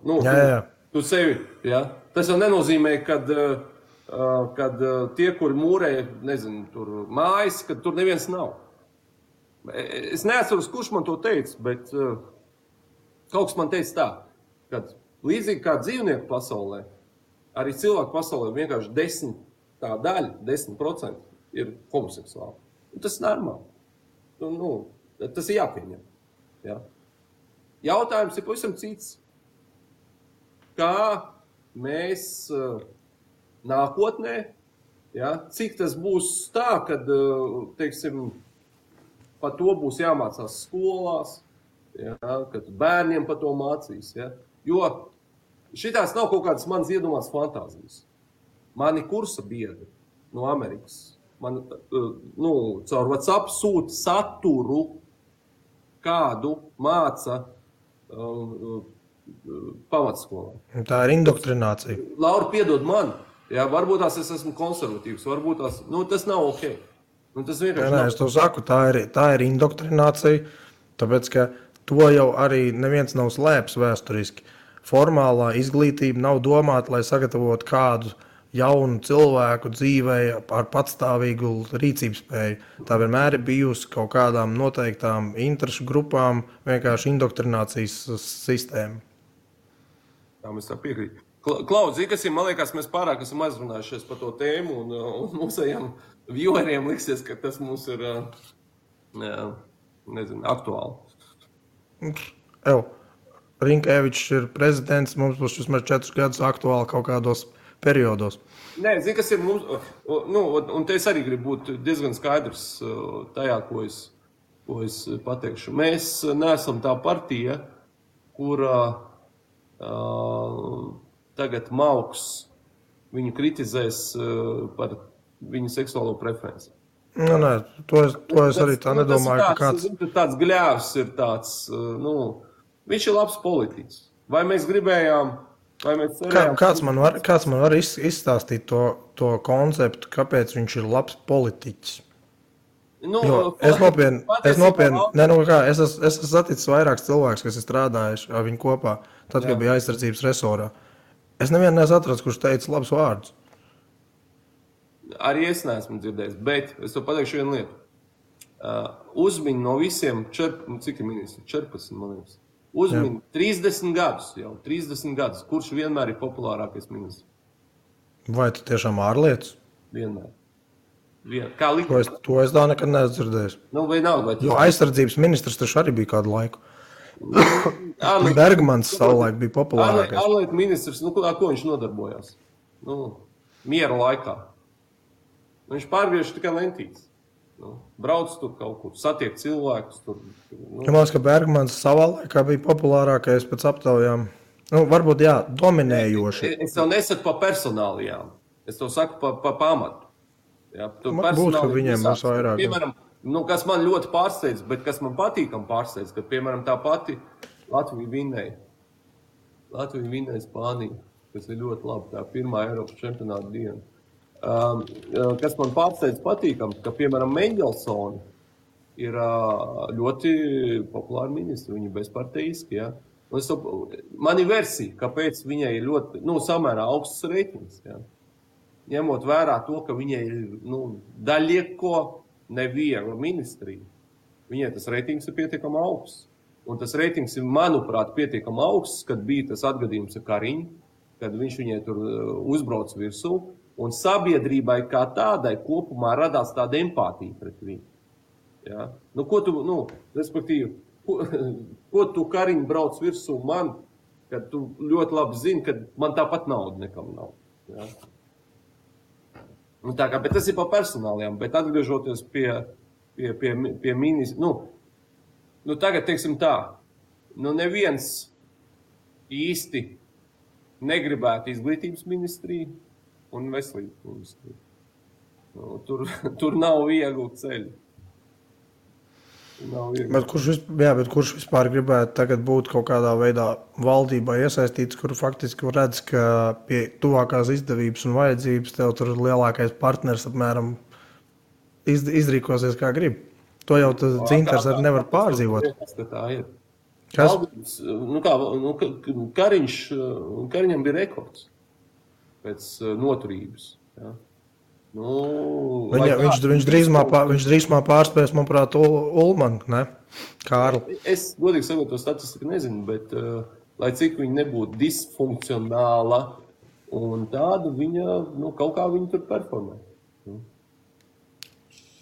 Tu sevi, ja? Tas jau nenozīmē, kad tie, kuri mūrē, nezinu, tur mājas, kad tur neviens nav. Es neatceros, kurš man to teica, bet kaut kas man teica tā, ka līdzīgi kā dzīvnieku pasaulē, arī cilvēku pasaulē vienkārši 10% ir homoseksuāli. Tas ir normāli. Tas ir jāpieņem. Ja? Jautājums ir pavisam cits. Kā mēs nākotnē, ja, cik tas būs tā, kad, teiksim, par to būs jāmācās skolās, ja, kad bērniem par to mācīs. Ja. Jo šitās nav kaut kādas manas iedomās fantāzijas. Mani kursa biedri no Amerikas, caur WhatsApp sūta saturu, kādu māca pamatskolā. Tā ir indoktrinācija. Laura, piedod man, ja, varbūt es esmu konservatīvs, varbūt tas nav ok. Es to saku, tā ir indoktrinācija, tāpēc, ka to jau arī neviens nav slēpis vēsturiski. Formālā izglītība nav domāta, lai sagatavotu kādu jaunu cilvēku dzīvei ar patstāvīgu rīcības spēju. Tā vienmēr ir bijusi kaut kādām noteiktām interešu grupām, vienkārši indoktrinācijas sistēma. Tā mēs tā piekrīt. Klaudz, kas ir, man liekas, mēs pārāk esam aizrunājušies par to tēmu un mūsējām vieweriem liksies, ka tas mums ir, aktuāli. Rinkēvičs ir prezidents, mums būs vismaz 4 gadus aktuāli kaut kādos periodos. Nē, zini, kas ir mums, un te es arī gribu būt diezgan skaidrs tajā, ko es pateikšu. Mēs neesam tā partija, kura tagad Mauks viņu kritizēs par viņu seksuālo preferenci. Nē, to es arī tā nedomāju, ka kāds... Tāds gļēvs ir tāds, viņš ir labs politiķis. Vai mēs gribējām, vai mēs cerējām... Kāds man var izstāstīt to konceptu, kāpēc viņš ir labs politiķis? Es esmu saticis vairākus cilvēkus, kas ir strādājuši ar viņu kopā, tad, kad bija aizsardzības resorā. Es nevienu neesmu atrasts, kurš teica labus vārdus. Arī es neesmu dzirdējis, bet es to pateikšu vienu lietu. Uzmiņ no visiem, cik ir ministri? 14, man liekas. Uzmiņ 30 gadus, kurš vienmēr ir populārākais ministrs. Vai tu tiešām ārlietas? Vienmēr. Kā likums? To es tā nekad neesmu dzirdējis. Jo aizsardzības ministrs taču arī bija kādu laiku. Bergmans savulaik bija populārākais. Ārlietu ministrs, ar ko viņš nodarbojās? Miera laikā. Viņš pārgriež tikai lentītes. Brauc tur kaut kur, satiek cilvēkus. Man liekas, ka Bergmans savā laikā bija populārākais pēc aptaujām. Varbūt, jā, dominējoši. Es tev nesaku par personālijām. Es tev saku par pamatu. Jā, būs, ka viņiem būs vairāk. Piemēram, kas man ļoti pārsteidz, bet kas man patīkam pārsteidz, ka, piemēram, tā pati Latvija vinnēja Spāniju, kas ir ļoti labi, tā pirmā Eiropas čempionāta diena. Kas man pārsteidz patīkam, ka, piemēram, Mendelsoni ir ļoti populāri ministri, viņi bezparteiski, ja. Man ir versija, kāpēc viņai ir ļoti, samērā augsts reitings, ja. Ņemot vērā to, ka viņai ir Daļieko neviegla ministrija, viņai tas reitings ir pietiekami augsts. Un tas reitings ir, manuprāt, pietiekami augsts, kad bija tas atgadījums ar Kariņu, kad viņš viņai tur uzbrauc virsū, un sabiedrībai kā tādai kopumā radās tāda empātija pret viņu. Ja? Nu, ko tu, respektīvi, ko tu Kariņu brauc virsū man, kad tu ļoti labi zini, ka man tāpat nauda nekam nav. Ja? Nu, tā kā, bet tas ir pa personālajām, bet atgriežoties pie ministra, tagad, teiksim tā, neviens īsti negribētu izglītības ministriju un veselības ministriju. Tur nav vieglu ceļu. Bet kurš vispār gribētu tagad būt kaut kādā veidā valdībā iesaistīts, kur faktiski redz, ka pie tuvākās izdevības un vajadzības tev tur lielākais partners apmēram izrīkosies kā grib. To jau Dzintars arī nevar pārdzīvot. Kas? Kariņam bija rekords pēc noturības. Ja? Viņš drīzumā pārspēs, manuprāt, Ulmanu, ne? Kārli. Es godīgi sakot, to statistiku nezinu, bet lai cik viņa nebūtu disfunkcionāla un tāda, viņa, kaut kā viņa tur performē.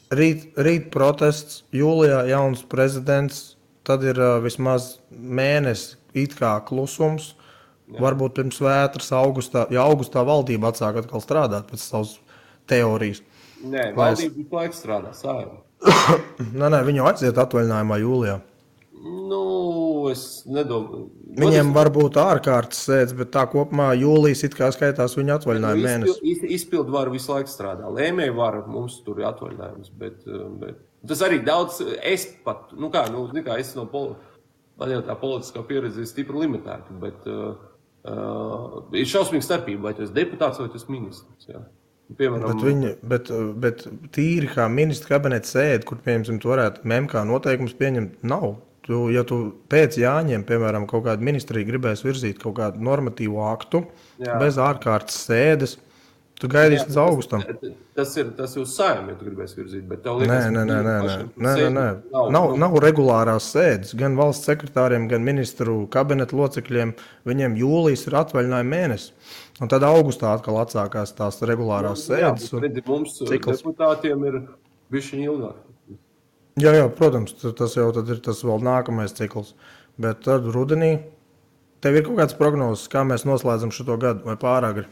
Rīt protests, jūlijā jauns prezidents, tad ir vismaz mēnesis it kā klusums. Jā. Varbūt pirms vētras augustā valdība atsāk atkal strādāt pēc savas teorijas. Nē, valdība visu laiku strādā, Saeima. Nē, viņu aiziet atvaļinājumā jūlijā. Es nedomāju. Viņiem var būt ārkārtas sēdes, bet tā kopumā jūlijas it kā skaitās viņa atvaļinājuma mēnesis. Izpildu varu visu laiku strādā. Lēmēju varu mums tur ir atvaļinājums, bet tas arī daudz, es pat, es man jau tā politiskā pieredze ir stipri limitēta, bet ir šausmīga starpība, vai tu esi deputāts vai tu esi ministrs, jā. Piemēram, bet tīri kā ministra kabineta sēde, kur, piemēram, tu varētu MMK noteikumus pieņemt, nav. Ja tu pēc Jāņiem, piemēram, kaut kādu ministriju gribēs virzīt kaut kādu normatīvu aktu, bez ārkārtas sēdes, tu gaidīsi līdz augustam. Tas ir uz Saeimu, ja tu gribēs virzīt, bet tev liekas... Nē. Nav regulārās sēdes. Gan valsts sekretāriem, gan ministru kabineta locekļiem, viņiem jūlijas ir atvaļinājuma mēnesis. Un tad augustā atkal atsākās tās regulārās sēdes. Mums deputātiem ir bišķiņ ilgāk. Jā, protams, tas jau tad ir tas vēl nākamais cikls. Bet tad rudenī tev ir kaut kāds prognozes, kā mēs noslēdzam šito gadu vai pāragri?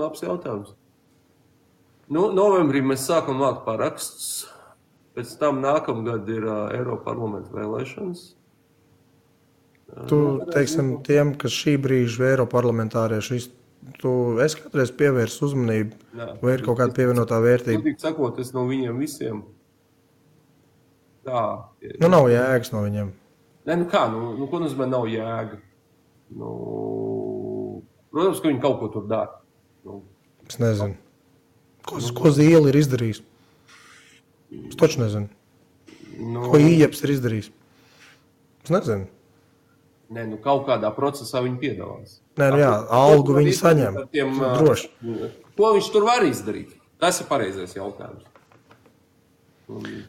Labs jautājums. Novembrī mēs sākam vākt parakstus. Pēc tam nākamgad ir Eiroparlamenta vēlēšanas. Tu, teiksim, tiem, kas šī brīža Eiroparlamentārieši, es kādreiz pievērsu uzmanību, vai ir kaut kāda pievienotā vērtība? Godīgi sakot, es no viņiem visiem tā... Nav jēgas no viņiem. Nē, ko nozīmē nav jēga? Protams, ka viņi kaut ko tur dara. Es nezinu. Ko Zīle ir izdarījis? Es taču nezinu. Ko Ījeps ir izdarījis? Es nezinu. Nē, kaut kādā procesā viņi piedalās. Algu viņi saņem. Droši. Ko viņš tur var izdarīt? Tas ir pareizais jautājums.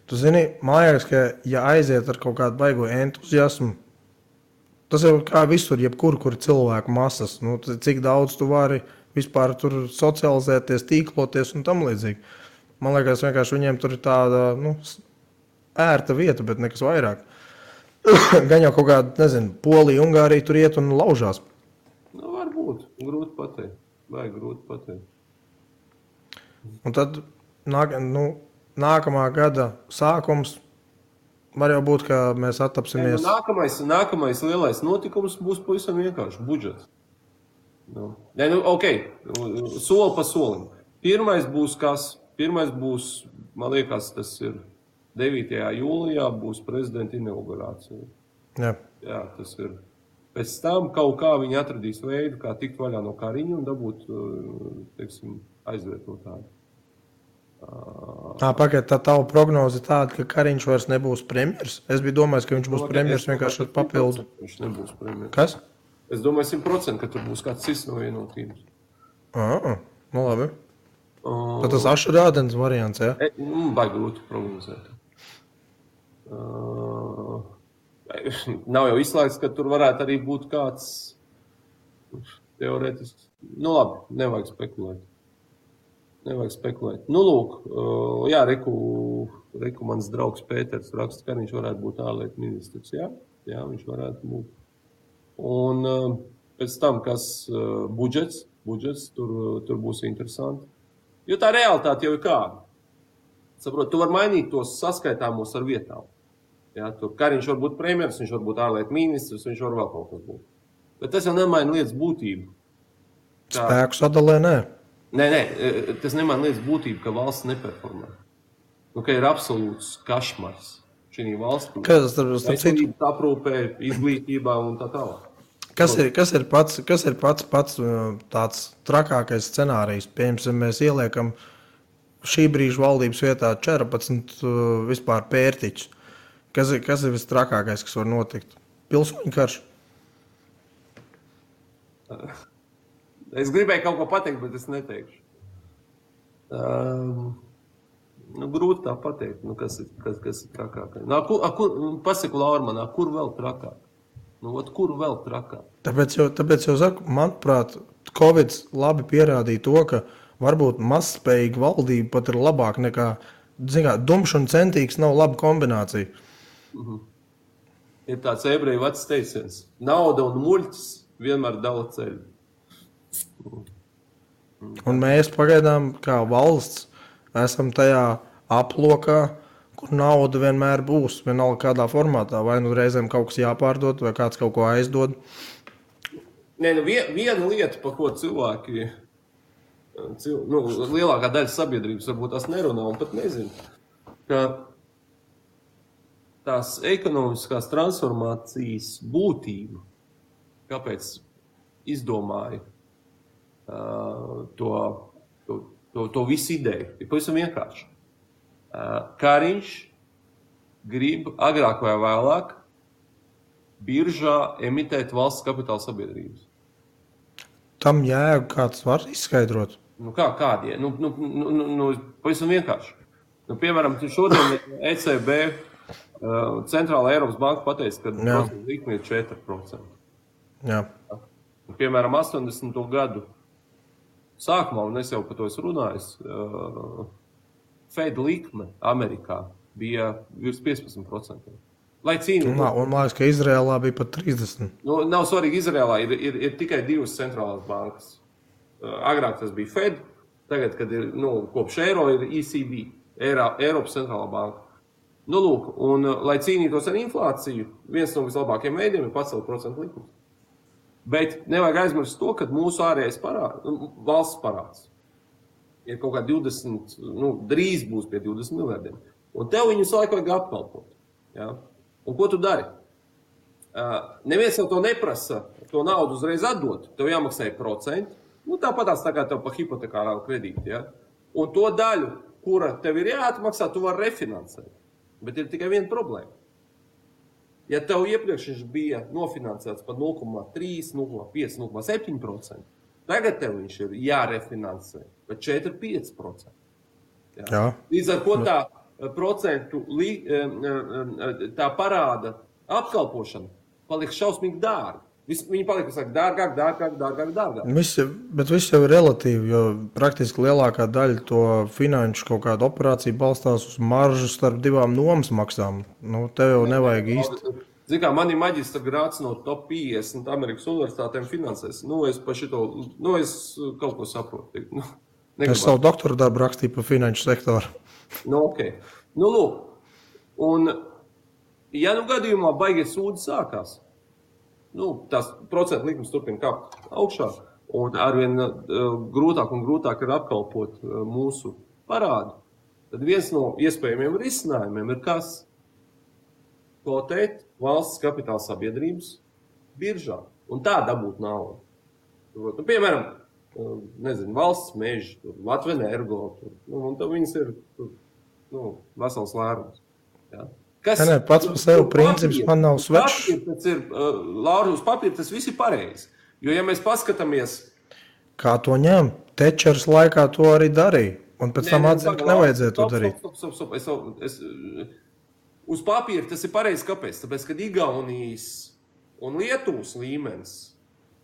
Tu zini, mājās, ka ja aiziet ar kaut kādu baigo entuziasmu, tas jau kā visur, jebkur, kur cilvēku masas, cik daudz tu vari vispār tur socializēties, tīkloties un tam līdzīgi. Man liekas, vienkārši viņiem tur ir tāda, ērta vieta, bet nekas vairāk. Gan jau kaut kāda, nezinu, Polija, Ungārija tur iet un laužās. Varbūt. Grūti pateikt. Vajag grūti pateikt. Un tad nākamā gada sākums var jau būt, ka mēs attapsimies. Nākamais lielais notikums būs pavisam vienkārši budžets. Soli pa solim. Pirmais būs kas? Pirmais būs, man liekas, tas ir 9. jūlijā būs prezidenta inaugurācija. Jā, tas ir. Pēc tam kaut kā viņi atradīs veidu, kā tikt vaļā no Kariņa un dabūt, aizvietotāju. Pagaid, tā tava prognoze tāda, ka Kariņš vairs nebūs premjers? Es biju domājis, ka viņš būs premjers vienkārši ar papildu. Viņš nebūs premjers. Kas? Es domāju 100%, ka tur būs kāds cits no vienotības. Labi. Tad tas ašrādens variants, ja? Baigi grūti prognozēt. Nav jau izslēgts, ka tur varētu arī būt kāds teorētisks. Nu labi, nevajag spekulēt. Nu lūk, jā, reku mans draugs Pēters raksta, ka viņš varētu būt ārlietu ministrs. Jā, viņš varētu būt. Un pēc tam, kas budžets, tur būs interesanti. Jo tā realitāte jau ir kāda. Saprot, tu vari mainīt tos saskaitāmos ar vietām. Ja, tur Kariņš var būt premjers, viņš var būt ārlietu ministrs, viņš var vēl kaut kas būt. Bet tas jau nemaina lietas būtību. Spēku sadalē, nē. Nē, tas nemaina lietas būtību, ka valsts neperformē. Nu, ka ir absolūts kašmars šī valstī. Veselības aprūpē, izglītībā un tā tālāk. Kas ir pats tāds trakākais scenārijs? Piemēram, mēs ieliekam šī brīža valdības vietā 14 vispār pērtiķus. Kas ir vistrakākais, kas var notikt? Pilsoņu karš? Es gribēju kaut ko pateikt, bet es neteikšu. Grūti tā pateikt, kas ir trakākais. Pasaku Laura manā, kur vēl trakāk? Kur vēl trakāk? Tāpēc jau saku, manuprāt, Covid labi pierādīja to, ka varbūt mazspējīga valdība pat ir labāk nekā, dumšs un centīgs nav laba kombinācija. Ir tāds ebreju vecs teiciens. Nauda un muļķis vienmēr dala ceļu. Un mēs pagaidām kā valsts esam tajā aplokā, kur nauda vienmēr būs, vienalga kādā formātā, vai nu reizēm kaut kas jāpārdod, vai kāds kaut ko aizdod. Nē, viena lieta, par ko cilvēki, lielākā daļa sabiedrības varbūt tās nerunā un pat nezina, ka tās ekonomiskās transformācijas būtība, kāpēc izdomāja to visu ideju, ir pavisam vienkārši. Kariņš grib agrāk vai vēlāk biržā emitēt valsts kapitāla sabiedrības. Tam jēgu kāds var izskaidrot? Kādie? Pavisam vienkārši. Piemēram, šodien ECB Centrālā Eiropas banka pateica, ka procentu likme ir 4%. Jā. Piemēram, 80. gadu sākumā, un es jau par to esmu runājis, Fed likme Amerikā bija virs 15%. Lai cīnītu. Un man liekas, ka Izrēlā bija pat 30%. Nav svarīgi, Izrēlā ir tikai divas centrālās bankas. Agrāk tas bija Fed, tagad, kad ir, kopš eiro ir ECB, Eiropas centrālā banka. Lūk, un lai cīnītos ar inflāciju, viens no vislabākajiem veidiem ir pacelt procentu likumus. Bet nevajag aizmirst to, ka mūsu ārējais valsts parāds ir kaut kā 20, drīz būs pie 20 miljardiem. Un tev viņus laiku vajag apkalpot. Ja? Un ko tu dari? Neviens jau to neprasa, to naudu uzreiz atdot. Tev jāmaksā procenti. Tāpatās tā kā tev pa hipotekārā kredīti. Ja? Un to daļu, kura tev ir jāatmaksā, tu vari refinansēt. Bet ir tikai viena problēma. Ja tev iepriekš viņš bija nofinansēts par 0,3, 0,5, 0,7%, tagad tev viņš ir jārefinansē par 4-5%. Jā. Līdz ar ko tā procentu tā parāda apkalpošana paliek šausmīgi dārga. Viņi paliek dārgāk. Bet viss jau ir relatīvi, jo praktiski lielākā daļa to finanšu kaut kādu operāciju balstās uz maržu starp divām nomas maksām. Tev jau nevajag īsti. Zini kā, man ir maģistra grāds no top 50 Amerikas universitātēm finansēs. Es pa šito, es kaut ko saprotu. Es savu doktora darbu rakstīju par finanšu sektoru. Ok. Lūk. Un, ja gadījumā baigie sūdi sākās, tās procentu likums turpina kāpt augšā, un arvien grūtāk un grūtāk ir apkalpot mūsu parādu, tad viens no iespējamiem risinājumiem ir kas? Kotēt valsts kapitāla sabiedrības biržā, un tā dabūt naudu. Piemēram, valsts meži, Latvenergo, un tad viņas ir vesels lērums. Ja? Pats par sevi princips man nav svešs. Laura, uz papīra tas viss ir pareizi. Jo, ja mēs paskatāmies... Kā to ņem? Tečers laikā to arī darīja. Un pēc tam atzina, ka nevajadzēja to darīt. Stop. Uz papīra tas ir pareizi, kāpēc? Tāpēc, kad Igaunijas un Lietuvas līmenis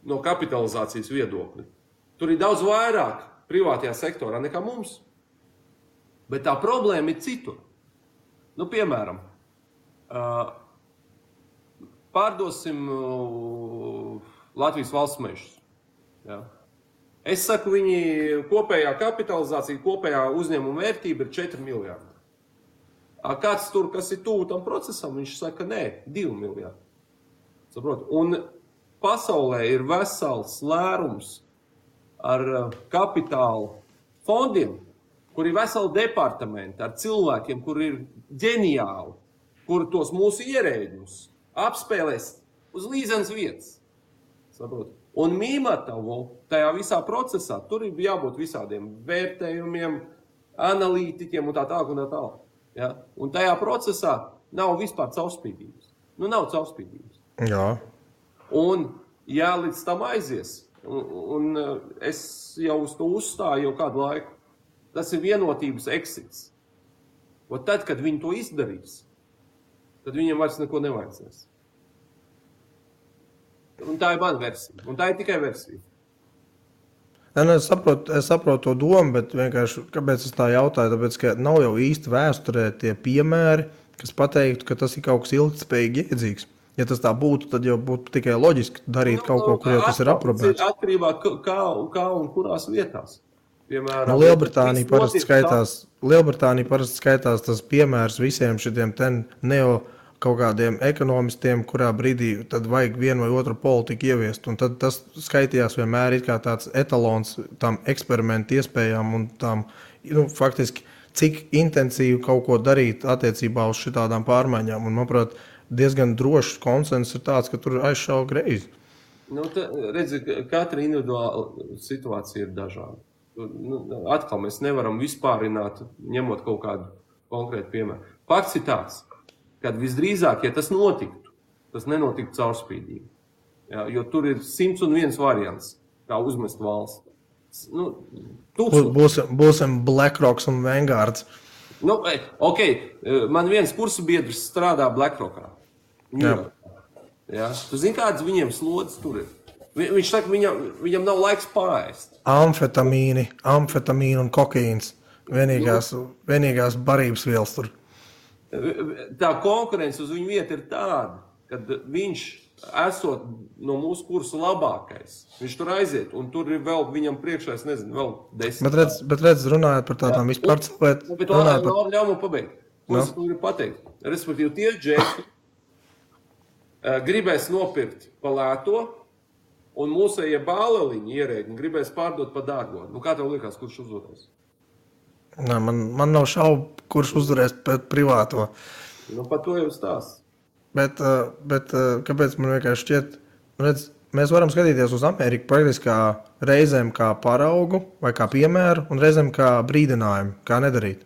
no kapitalizācijas viedokļa, tur ir daudz vairāk privātajā sektorā nekā mums. Bet tā problēma ir citur. Nu, piemēram, pārdosim Latvijas valsts mežus. Ja? Es saku, viņi kopējā kapitalizācija, kopējā uzņēmuma vērtība ir 4 miljardi. Kāds tur, kas ir tuvu tam procesam, viņš saka, nē, 2 miljardi. Saprot? Un pasaulē ir vesels lērums ar kapitāla fondiem, kur ir veseli departamenti ar cilvēkiem, kur ir ģeniāli, kur tos mūsu ierēģus apspēlēs uz līdzenas vietas. Saprot? Un Mīmatavu tajā visā procesā, tur ir jābūt visādiem vērtējumiem, analītiķiem un tā tālāk un tā tālāk. Ja? Un tajā procesā nav vispār caurspīdības. Nu, nav caurspīdības. Jā. Un, ja līdz tam aizies, un es jau uz to uzstāju jau kādu laiku, tas ir vienotības eksits. Un tad, kad viņi to izdarīs, tad viņiem vairs neko nevajadzēs. Un tā ir mana versija. Un tā ir tikai versija. Es saprotu to domu, bet vienkārši, kāpēc es tā jautāju, tāpēc, ka nav jau īsti vēsturē tie piemēri, kas pateiktu, ka tas ir kaut kas ilgtspējīgi iedzīgs. Ja tas tā būtu, tad jau būtu tikai loģiski darīt kaut ko, kur jau tas ir aprobēts. Atkarībā kā un kurās vietās. Piemēram, Lielbritānija parasti skaitās tas piemērs visiem šitiem neo kaut kādiem ekonomistiem, kurā brīdī tad vajag vienu vai otru politiku ieviest. Un tad tas skaitījās vienmēr kā tāds etalons tam eksperimentu iespējām un tam, faktiski, cik intensīvi kaut ko darīt attiecībā uz šitādām pārmaiņām. Un, manuprāt, diezgan drošs konsens ir tāds, ka tur aizšauja greizi. Redzi, katra individuāla situācija ir dažāda. Atkal mēs nevaram vispārināt, ņemot kaut kādu konkrētu piemēru. Fakts ir tāds, kad visdrīzāk, ja tas notiktu, tas nenotiktu caurspīdīgi. Ja, jo tur ir 101 variants, kā uzmest valsts. Būsim BlackRocks un Vanguards. Man viens kursu biedrs strādā BlackRockā. Ja, tu zini, kādas viņiem slodzes tur ir? Viņš saka, viņam nav laiks pārēst. Amfetamīni un kokaīns. Vienīgās barības vielas tur. Tā konkurence uz viņu vietu ir tāda, kad viņš, esot no mūsu kursa labākais, viņš tur aiziet, un tur ir vēl viņam priekšā, es nezinu, vēl 10. Bet redz, runājot par tādām vispār cilvēku. Bet ļauj man pabeigt. Ko es gribu pateikt? Respektīvi, tie džeki gribēs nopirkt pa lēto, un mūsējie bāleliņi ierēģi gribēs pārdot pa dārgo. Kā tev liekas, kurš uzvarēs? Man nav šaubu, kurš uzvarēs pret privāto. Par to jau stāsts. Bet kāpēc man vienkārši šķiet, redz, mēs varam skatīties uz Ameriku praktiski kā reizēm kā paraugu vai kā piemēru un reizēm kā brīdinājumu, kā nedarīt.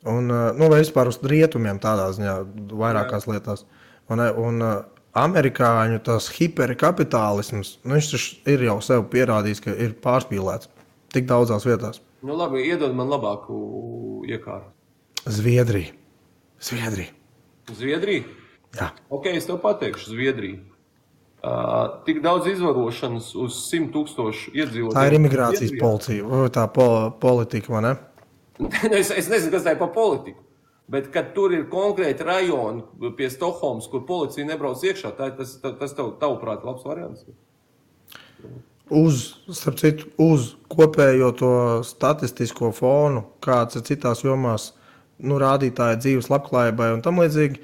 Un, vai vispār uz rietumiem tādā ziņā vairākās lietās. Un amerikāņu tas hiperkapitālisms, viņš ir jau sev pierādījis, ka ir pārspīlēts tik daudzās vietās. Labi, iedod man labāku iekārtu. Zviedrija? Jā. Ok, es tev pateikšu, Zviedrija. Tik daudz izvarošanas uz 100,000 iedzīvotājiem. Tā ir imigrācijas policija, tā politika, vai ne? Es nezinu, kas tā ir pa politiku, bet kad tur ir konkrēti rajoni pie Stokholmas, kur policija nebrauc iekšā, tas tavuprāt labs variants? Starp citu, uz kopējo to statistisko fonu, kāds ir citās jomās rādītāji dzīves labklājībai un tam līdzīgi,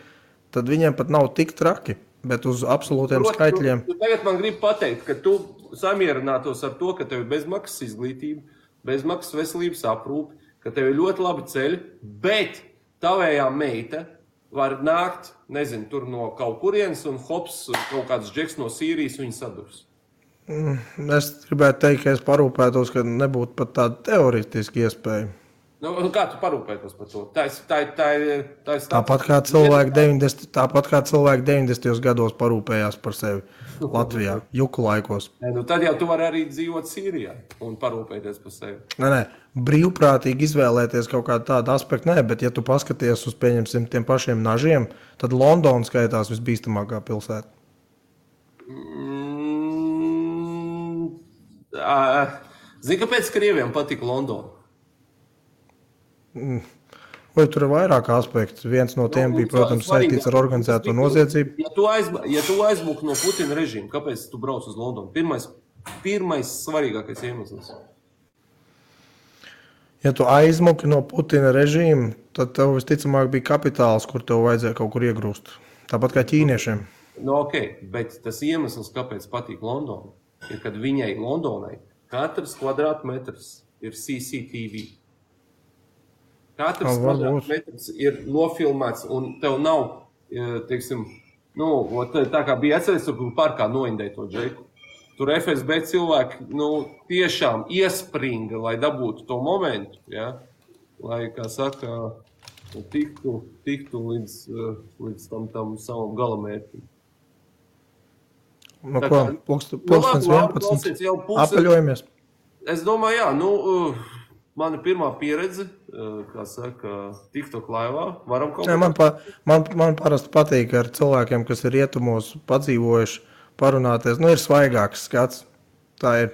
tad viņiem pat nav tik traki, bet uz absolūtiem skaitļiem. Tu tagad man gribi pateikt, ka tu samierinātos ar to, ka tev ir bezmaksas izglītība, bezmaksas veselības aprūpe, ka tev ir ļoti labi ceļi, bet tavējā meita var nākt, nezinu, tur no kaut kurienes un hops, kaut kāds džeks no Sīrijas viņu sadurs. Es gribētu teikt, ka es parūpētos, ka nebūtu pat tāda teoretiska iespēja. Kā tu parūpētos par to? Tā ir Tāpat kā cilvēki 90. gados parūpējās par sevi Latvijā, juku laikos. Tad jau tu vari arī dzīvot Sīrijā un parūpēties par sevi. Nē, brīvprātīgi izvēlēties kaut kādu tādu aspektu, bet ja tu paskaties uz, pieņemsim, tiem pašiem nažiem, tad Londona skaitās visbīstamākā pilsēta. Zini, kāpēc Krieviem patika Londona? Vai tur ir vairāk aspektu? Viens no tiem bija, protams, saistīts ar organizēto noziedzību. Ja tu aizmuki no Putina režīma, kāpēc tu brauc uz Londonu? Pirmais svarīgākais iemesls. Ja tu aizmuki no Putina režīma, tad tev visticamāk bija kapitāls, kur tev vajadzēja kaut kur iegrūst. Tāpat kā ķīniešiem. Bet tas iemesls, kāpēc patīk Londona, ir, kad viņai Londonai katrs kvadrātmetrs ir CCTV. Katrs kvadrātmetrs ir nofilmēts, un tev nav, teiksim, tā kā bija atceries, tur parkā noindēja to džeku. Tur FSB cilvēki, tiešām iespringa, lai dabūtu to momentu, ja? Lai, kā saka, tiktu līdz tam savam galamērķim. Pulkstens 11. Apaļojamies. Es domāju, mana pirmā pieredze, kā saka, TikTok laivā, varam kaut kā... Man parasti patīk ar cilvēkiem, kas ir rietumos padzīvojuši, parunāties. Ir svaigāks skats. Tā ir.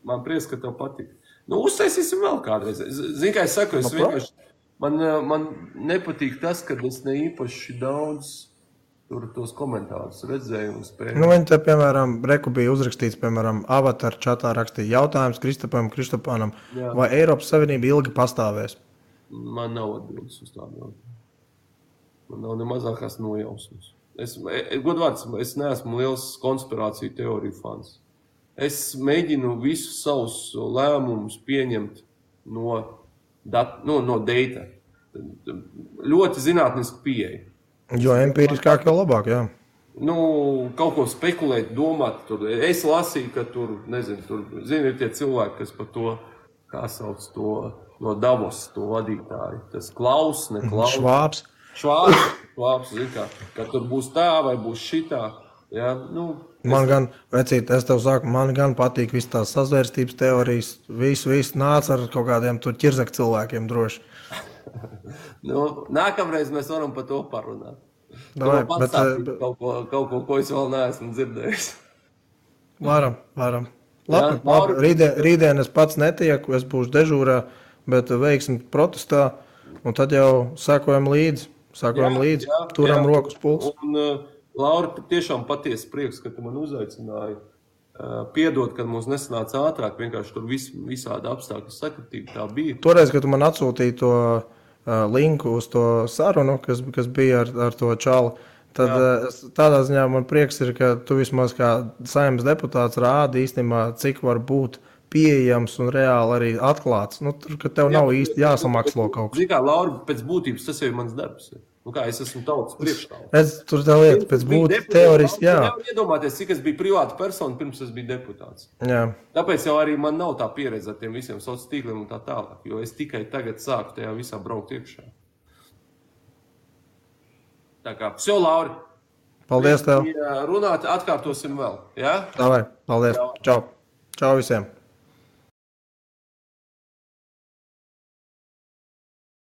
Man prieks, ka tev patīk. Uztaisīsim vēl kādreiz. Zini, kā es saku, vienkārši... Man nepatīk tas, ka es ne īpaši daudz... Tur tos komentārus redzēju un spēju. Viņi te, piemēram, bija uzrakstīts, piemēram, avatar čatā rakstīja jautājums Kristapānam, vai Eiropas Savienība ilgi pastāvēs? Man nav atbildes uz tādu. Man nav ne mazākās nojausmas. Godvārds, es neesmu liels konspirāciju teoriju fans. Es mēģinu visus savus lēmumus pieņemt no data. Ļoti zinātniski pieeja. Jo empiriskāk jau labāk, jā. Kaut ko spekulēt, domāt. Es lasīju, ka ir tie cilvēki, kas par to, kā sauc to, no Davos, to vadītāju. Tas Klaus, ne Klaus. Švābs, ka tur būs tā vai būs šitā. Ja? Man gan patīk viss tās sazvērstības teorijas. Visu nāc ar kaut kādiem tur ķirzak cilvēkiem droši. Nākamreiz mēs varam par to parunāt. Kaut ko, ko es vēl neesmu dzirdējis. Varam. Labi, rītdien es pats netieku, es būšu dežūrā, bet veiksim protestā, un tad jau sekojam līdzi, turam rokas pulsu. Laura, tiešām patiesi prieks, ka tu man uzaicināji. Piedod, kad mums nesanāca ātrāk, vienkārši tur visādi apstākļi sakritīgi tā bija. Toreiz, kad tu man atsūtīji to linku uz to sarunu, kas bija ar to čalu, tad tādā ziņā man prieks ir, ka tu vismaz kā Saeimas deputāts rādi īstenībā, cik var būt pieejams un reāli arī atklāts. Ka tev nav īsti jāsamakslo kaut kas. Zini kā, Laura, pēc būtības tas jau ir mans darbs. Es esmu tautas priekšstāvs. Tur tā lieta, pēc būtības teoriski, jā. Nevar iedomāties, cik es biju privāta persona, pirms es biju deputāts. Jā. Tāpēc jau arī man nav tā pieredze ar tiem visiem sociāliem tīkliem un tā tālāk, jo es tikai tagad sāku tajā visā braukt iekšā. Tā kā, Lauri. Paldies tev. Runāt, atkārtosim vēl, jā? Davai, paldies. Čau. Čau visiem.